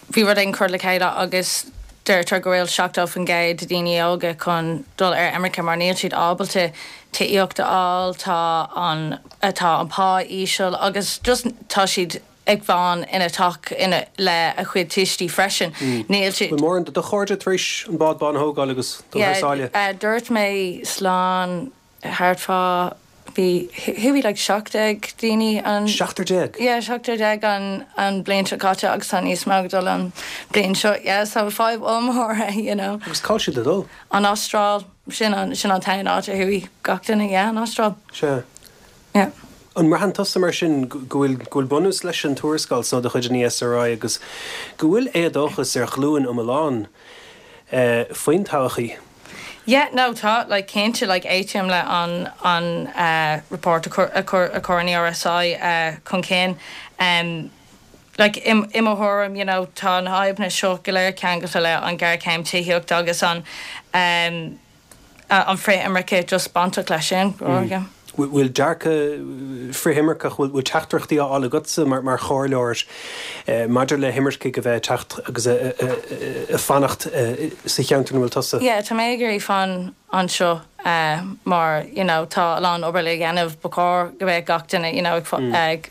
bhí rud éigin curtha le chéile agus deirtear go bhfuil 70% de daoine óga chun dul ar imirce mar níl siad ábalta tithíocht a fháil, tá an, tá an pá íseal agus just tá siad ag fán ina teach ina, le a chuid tuistí freisin. Níl siad. Bhfuil mórán de do chairde tar éis an bád bán a thógáil agus dul thar sáile? Yeah, dúirt mé slán thart fá, bhí, chuaigh like 17 daoine an. Seachtar déag? Yeah, seachtar déag an, an bliain seo caite agus tá níos mó ag dul an bliain seo, yeah, so fadhb ollmhór é, you know. Agus cá bhfuil siad ag dul? An Astráil, sin an, sin an t-aon áit a chuaigh gach duine, yeah, an Astráil. Sea. Yeah. An mbraitheann tusa mar sin go bhfuil, go bhfuil bunús leis an tuarascáil so de chuid an ESRI agus go bhfuil éadóchas ar ghlúin iomlán faoin todhchaí? Yeah, no, tá, like, cinnte, like, aontaím le an, an eh, report a chuir, a chuir, a chuir an ERSI eh, chun cinn. Em, like, i, i mo thuairim, you know, tá na fadhbanna seo go léir ceangailte le an géarchéim tithíochta agus an, em, an frith-imirce just bainteach leis sin, yeah. Bhfuil dearcadh frith-imirceach, bhfuil teachtaireachtaí á fháil agatsa mar chomhairleoir maidir le himircigh a bheith ag teacht agus ag fanacht sa cheantar ina bhfuil tusa? Yeah, tá mé ag iarraidh fan anseo mar you know tá a lán obair le dhéanamh, ba chóir go mbeadh gach duine you know ag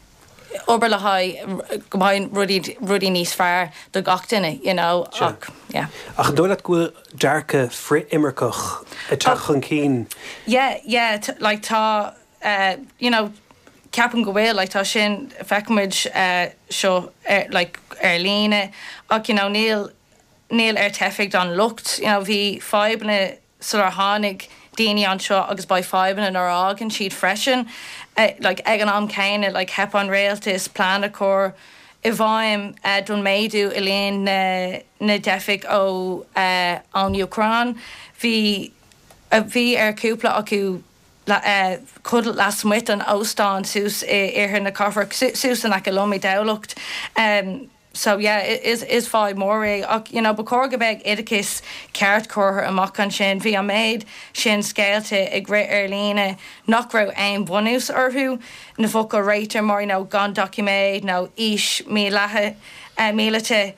obair le haghaidh go mbeidh rudaí rudaí níos fearr do gach duine you know ach yeah. Ach an dóigh leat go bhfuil dearcadh frith-imirceach ag teacht chun cinn? Yeah yeah like tá you know ceapaim go bhfuil like tá sin feicimid seo ar like ar líne ach you know níl níl ar teifigh an locht you know bhí fadhbanna sular tháinig daoine anseo agus beidh fadhbanna nuair a fhágann siad freisin. Like ag an am céanna like theip an rialtas plean a chur i bhfeidhm don méadú i líon na na dteifigh ó ón Úcráin. Bhí bhí ar cúpla acu codladh lasmuigh den óstán suas i iarthar na cathrach suas in aice liom i dTamhlacht. So yeah, is is fadhb mór é ach you know ba chóir go mbeadh oideachas ceart curtha amach ansin. Bhí an méid sin scéalta ag rith ar líne nach raibh aon bhunús orthu, na focail réite mar you know gan doiciméid nó aois míleata míleata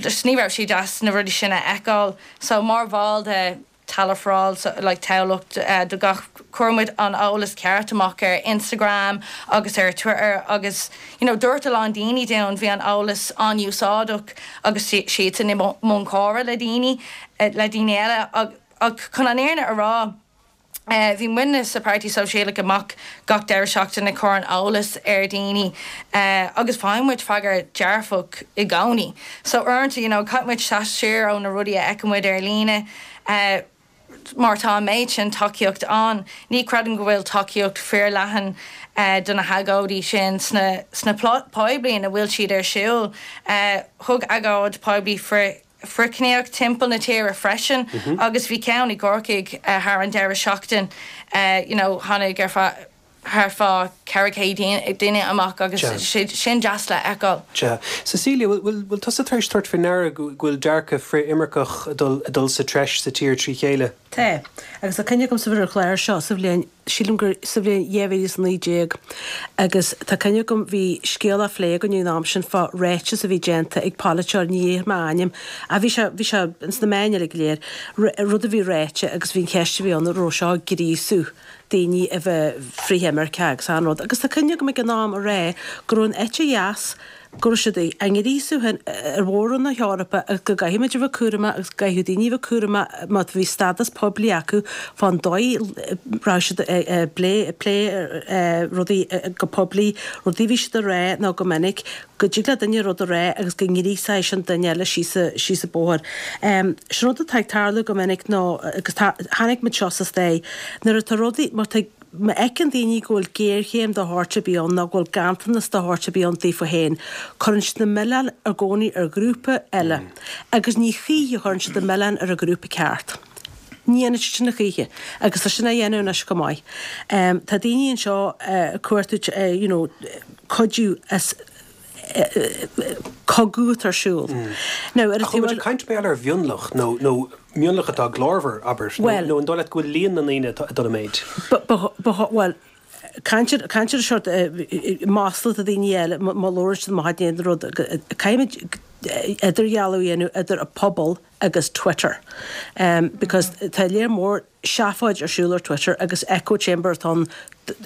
just ní raibh sé deas na rudaí sin a fheiceáil. So mar bhall de Tallaght for All like Tamhlacht do gach, chuir muid an eolas ceart amach ar Instagram agus ar Twitter agus you know dúirt a lán daoine dúinn bhí an eolas an-úsáideach agus siadsan i mbun comhrá le daoine le daoine eile ach chun an fhírinne a rá bhí muidne sa Páirtí Sóisialach amach gach deireadh seachtaine ag cur an eolas ar daoine agus faigheann muid freagra dearfach i gcónaí. So uaireanta you know caithfidh muid seasamh siar ó na rudaí a fheiceann muid ar líne mar tá an méid sin tacaíocht ann. Ní chreidim go bhfuil tacaíocht fíorleathan do na hagóidí sin sna sna poiblí ina bhfuil siad ar siúl. Thug agóid poiblí frith frithchiníoch timpeall na tíre freisin agus bhí ceann i gCorcaigh thar an deireadh seachtain you know tháinig ar feadh thart fá 400 duine amach agus sin deas le feiceáil. Sea. Cecilia, bhfuil bhfuil tusa tar éis tabhairt faoi ndeara go bhfuil dearcadh frith-imirceach ag dul ag dul sa treis sa tír trí chéile? Tá. Agus tá cuimhne agamsa ar an chlár seo sa bhliain, sílim gur sa bhliain 2019 agus tá cuimhne agam bhí scéal á phlé againn ag an am sin fá ráiteas a bhí déanta ag polaiteoir, ní dhéarfaidh mé a ainm, ach bhí sé, bhí sé ins na meáin uilig go léir, rud a bhí ráite agus bhí an cheist a bhí ann an raibh seo ag gríosú daoine a bheith frith-imirceach agus an rud. Agus tá cuimhne agam ag an am a rá go raibh an eite dheas, go raibh siad á ngríosú féin ar mhór-roinn na hEorpa agus go gcaithfidh muid a bheith cúramach agus go gcaithfidh daoine a bheith cúramach má bhí stádas poiblí acu fán dóigh a raibh siad ag plé rudaí go poiblí, rudaí a bhí siad a rá nó go minic go dtig le duine rud a rá agus go ngríosóidh sin duine eile síos an bóthar. Sin rud atá ag tarlú go minic nó agus chonaic muid seo sa stair nuair atá rudaí, má tá Má fheiceann daoine go bhfuil géarchéim de shórt ar bith ann nó go bhfuil ganntanas de shórt ar bith ann daofa féin, cuireann siad an milleán i gcónaí ar ghrúpa eile agus ní choíche a chuireann siad an milleán ar an ghrúpa ceart. Ní dhéanann siad sin a choíche agus tá sin á dhéanamh anois chomh maith. Tá daoine anseo ag cuartú you know cuidiú as cogadh atá ar siúl. Now ar an Ach taobh eile. Caint mar gheall ar mhionlach nó nó mionlach atá glórmhar, abair, nó nó an dóigh leat go bhfuil líon na ndaoine atá ag dul i méid? Ba ba ba bhuel, caint ar caint ar sort masla do dhaoine eile má labhrann siad amach in éadan rud, caithfimid idirdhealú a dhéanamh idir an pobal agus Twitter because tá léar mór seafóid ar siúl ar Twitter agus echo chamber atá ann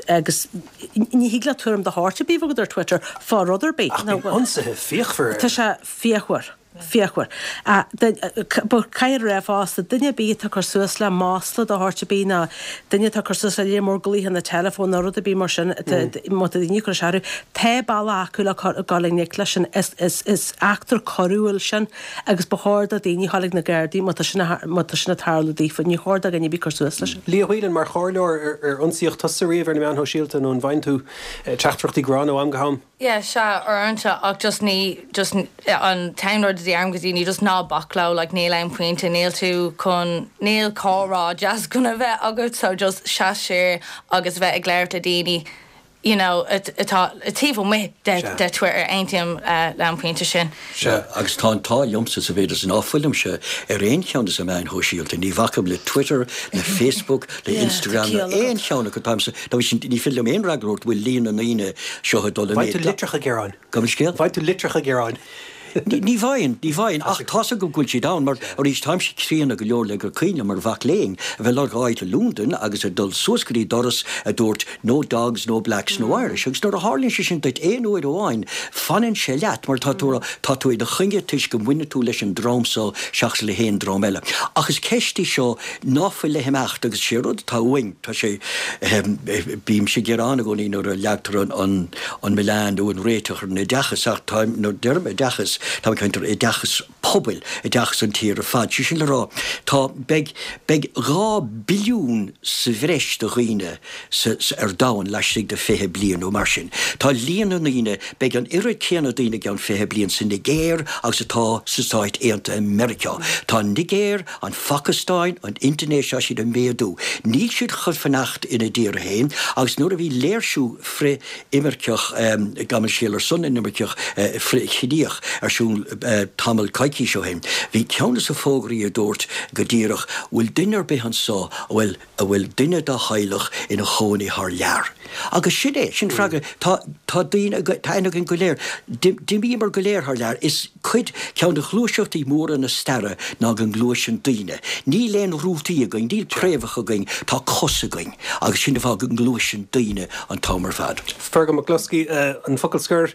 agus ní thig leat tuairim de shórt ar bith a bheith agat ar Twitter fá rud ar bith. Ach bíonn ionsaithe fíochmhar air. Tá sé fíochmhar. Fíochmhar. But caithfear a rá fosta, duine ar bith atá ag cur suas le masla de shórt ar bith nó duine atá ag cur suas le léar mór glaochanna teileafóin nó rud ar bith mar sin, má tá daoine ag cur isteach orthu, tá bealach acu le dul i ngleic leis sin. Is eachtra coiriúil sin. Agus ba chóir do dhaoine a ghabháil ag na Gardaí má tá sin má tá sin ag tarlú daofa. Ní chóir do dhuine ar bith cur suas leis. Leah Whelan, mar chomhairleoir, ar ionsaíodh tusa riamh ar na meáin shóisialta nó an bhfaigheann tú teachtaireachtaí gránna ó am go ham? Yeah, sea, uaireanta, ach just ní, just an t-aon rud a. deirim go daoine just ná bac leo like níl aon pointe níl tú chun níl comhrá deas chun a bheith agat so just seas siar agus bheith ag labhairt le daoine you know atá taobh amuigh de Twitter aontaím le an pointe sin. Sea, agus tá an t-ádh liomsa sa mhéid is ná fuilimse ar aon cheann de na meáin shóisialta, ní bhacaim le Twitter, le Facebook, le Instagram ná aon cheann acu, táimse, ní féidir liom aon fhreagra a thabhairt bhfuil líon na ndaoine seo ag dul i méid. Faigheann tú litreacha gearáin. Gabh mo leithscéal? Faigheann tú litreacha gearáin. Ní bhfaigheann, ní bhfaigheann, ach tá's agam go bhfuil siad ann, mar arís, táimse críonna go leor le gur cuimhin liom mar mhac léinn a bheith ag lorg áit i Londain agus ag dul suas go dtí doras a dúirt no dogs, no blacks, no Irish agus nuair a tharlaíonn sé sin duit aon uair amháin, fanann sé leat mar tá tú, tá tú ina choinne toisc go mbaineann tú leis an dream so seachas le haon dream eile. Ach is ceist í seo ná fuil le himeacht agus sé rud atá uainn, tá sé, bímse ag gearán i gcónaí nuair a leagtar an, an milleán nó an réiteach ar an oideachas ach tá, nuair a deirim oideachas, táim ag caint ar oideachas pobail, oideachas an tír ar fad. Sé sin le rá, tá, beidh, beidh 2 billiún sa bhreis de dhaoine sa, sa, ar domhan laistigh de 20 bliain nó mar sin. Tá líon na ndaoine, beidh an oiread céanna daoine i gceann 20 bliain sa Nigéir agus atá sa Stáit Aontaithe Meiriceá. Tá an Nigéir, an Phacastáin, an Indinéis, tá siad ag méadú. Níl siad chun fanacht ina dtír féin agus nuair a bhí léirsiú frith-imirceach, gabh mo leithscéal, ar son na n-imirceach, frith-chiníoch ar siúl tamall coicís ó shin, bhí ceann de na fógraí a dúirt go díreach, bhfuil duine ar bith anso a bhfuil a bhfuil duine dá theaghlach ina chónaí thar lear? Agus sin é, sin freagra, tá, tá daoine, tá aithne againn go léir, d'imíomar go léir thar lear, is cuid, ceann de ghluaiseachtaí móra na staire ná go ngluaiseann daoine. Níl aon rútaí againn, níl préamhacha againn, tá cos againn agus sin an fáth go ngluaiseann daoine an t-am ar fad. Fergal McCloskey, an focal scoir.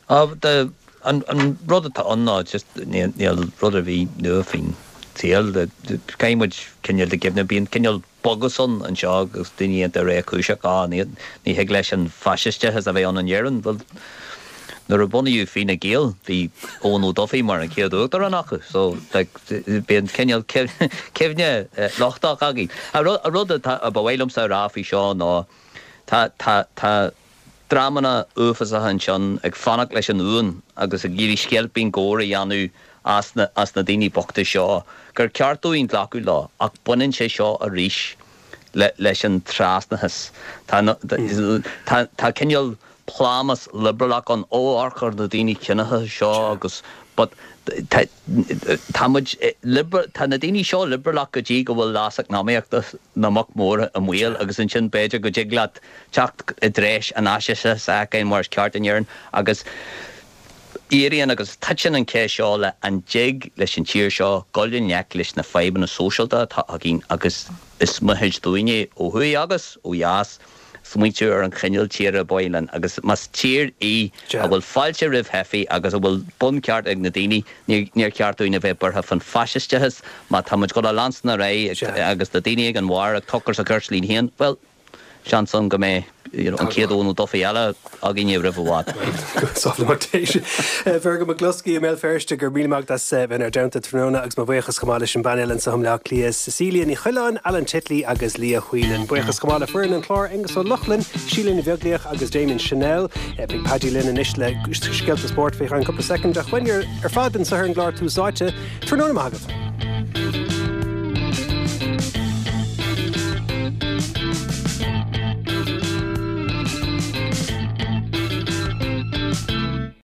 An rud atá ann ná just níl rud ar bith nua faoin tsaol. Caithfidh muid cineál de cuimhneamh, bíonn cineál bogus ann anseo agus daoine iontach réchúiseach, á, ní thig leis an faisisteachas a bheith ann in Éirinn. Bhuel, nuair a bunaíodh Fine Gael, bhí Eoin Ó Dufaigh mar an chéad uachtarán acu, so like bíonn cineál cuimhne lochtach againn. An rud atá, ba mhaith liomsa a rá faoi seo ná tá, tá, tá, dreamanna uafásacha ansin ag fanacht leis an uain agus ag iarraidh sceilpín góir a dhéanamh as na as na daoine bochta seo, gur ceart dúinn glacadh leo, ach baineann sé seo arís le leis an trasnachas. Tá tá tá cineál plámás liobrálach ann, ó amharc ar na daoine ciníocha seo agus but tá tá muid tá na daoine seo liobrálach go dtí go bhfuil leas eacnamaíochta na mboc mór i mbaol agus ansin b'fhéidir go dtig leat teacht i dtreis an fhaisisteachais a fheiceáil mar is ceart in Éirinn agus éiríonn agus titeann an cheist seo le an dtig leis an tír seo dul i ngleic leis na fadhbanna sóisialta atá againn agus is mithid dúinne ó thuaidh agus ó dheas smaointiú ar an chineál tíre ba mhaith linn agus más tír í a bhfuil fáilte roimh theifigh agus a bhfuil buncheart ag na daoine níor cheart dúinn a bheith buartha fán faisisteachas má tá muid ag dul a leanstan ar aghaidh agus na daoine ag an bharr ag tochras a gcirt linn féin, bhuel. Seans ann go mbeidh an chéad Eoin Ó Dufaigh eile againne roimh i bhfad. Fergal McCloskey i mBéal Feirste, go raibh míle maith agat as bheith inár dteannta tráthnóna agus mo bhuíochas chomh maith leis an bpainéal anseo i mBaile Átha Cliath, Cecilia Ní Choileáin, Alan Titley agus Liadh Whelan. Buíochas chomh maith le foireann an chláir, Aengus Ó Lochlainn, Síle Ní Bheaglaoich agus Damien Channel. Beidh Paddy linn anois le scéalta spóirt faoi cheann cúpla soicind ach uainn ar fad anseo ar an gclár Tús Áite. Tráthnóna maith agaibh.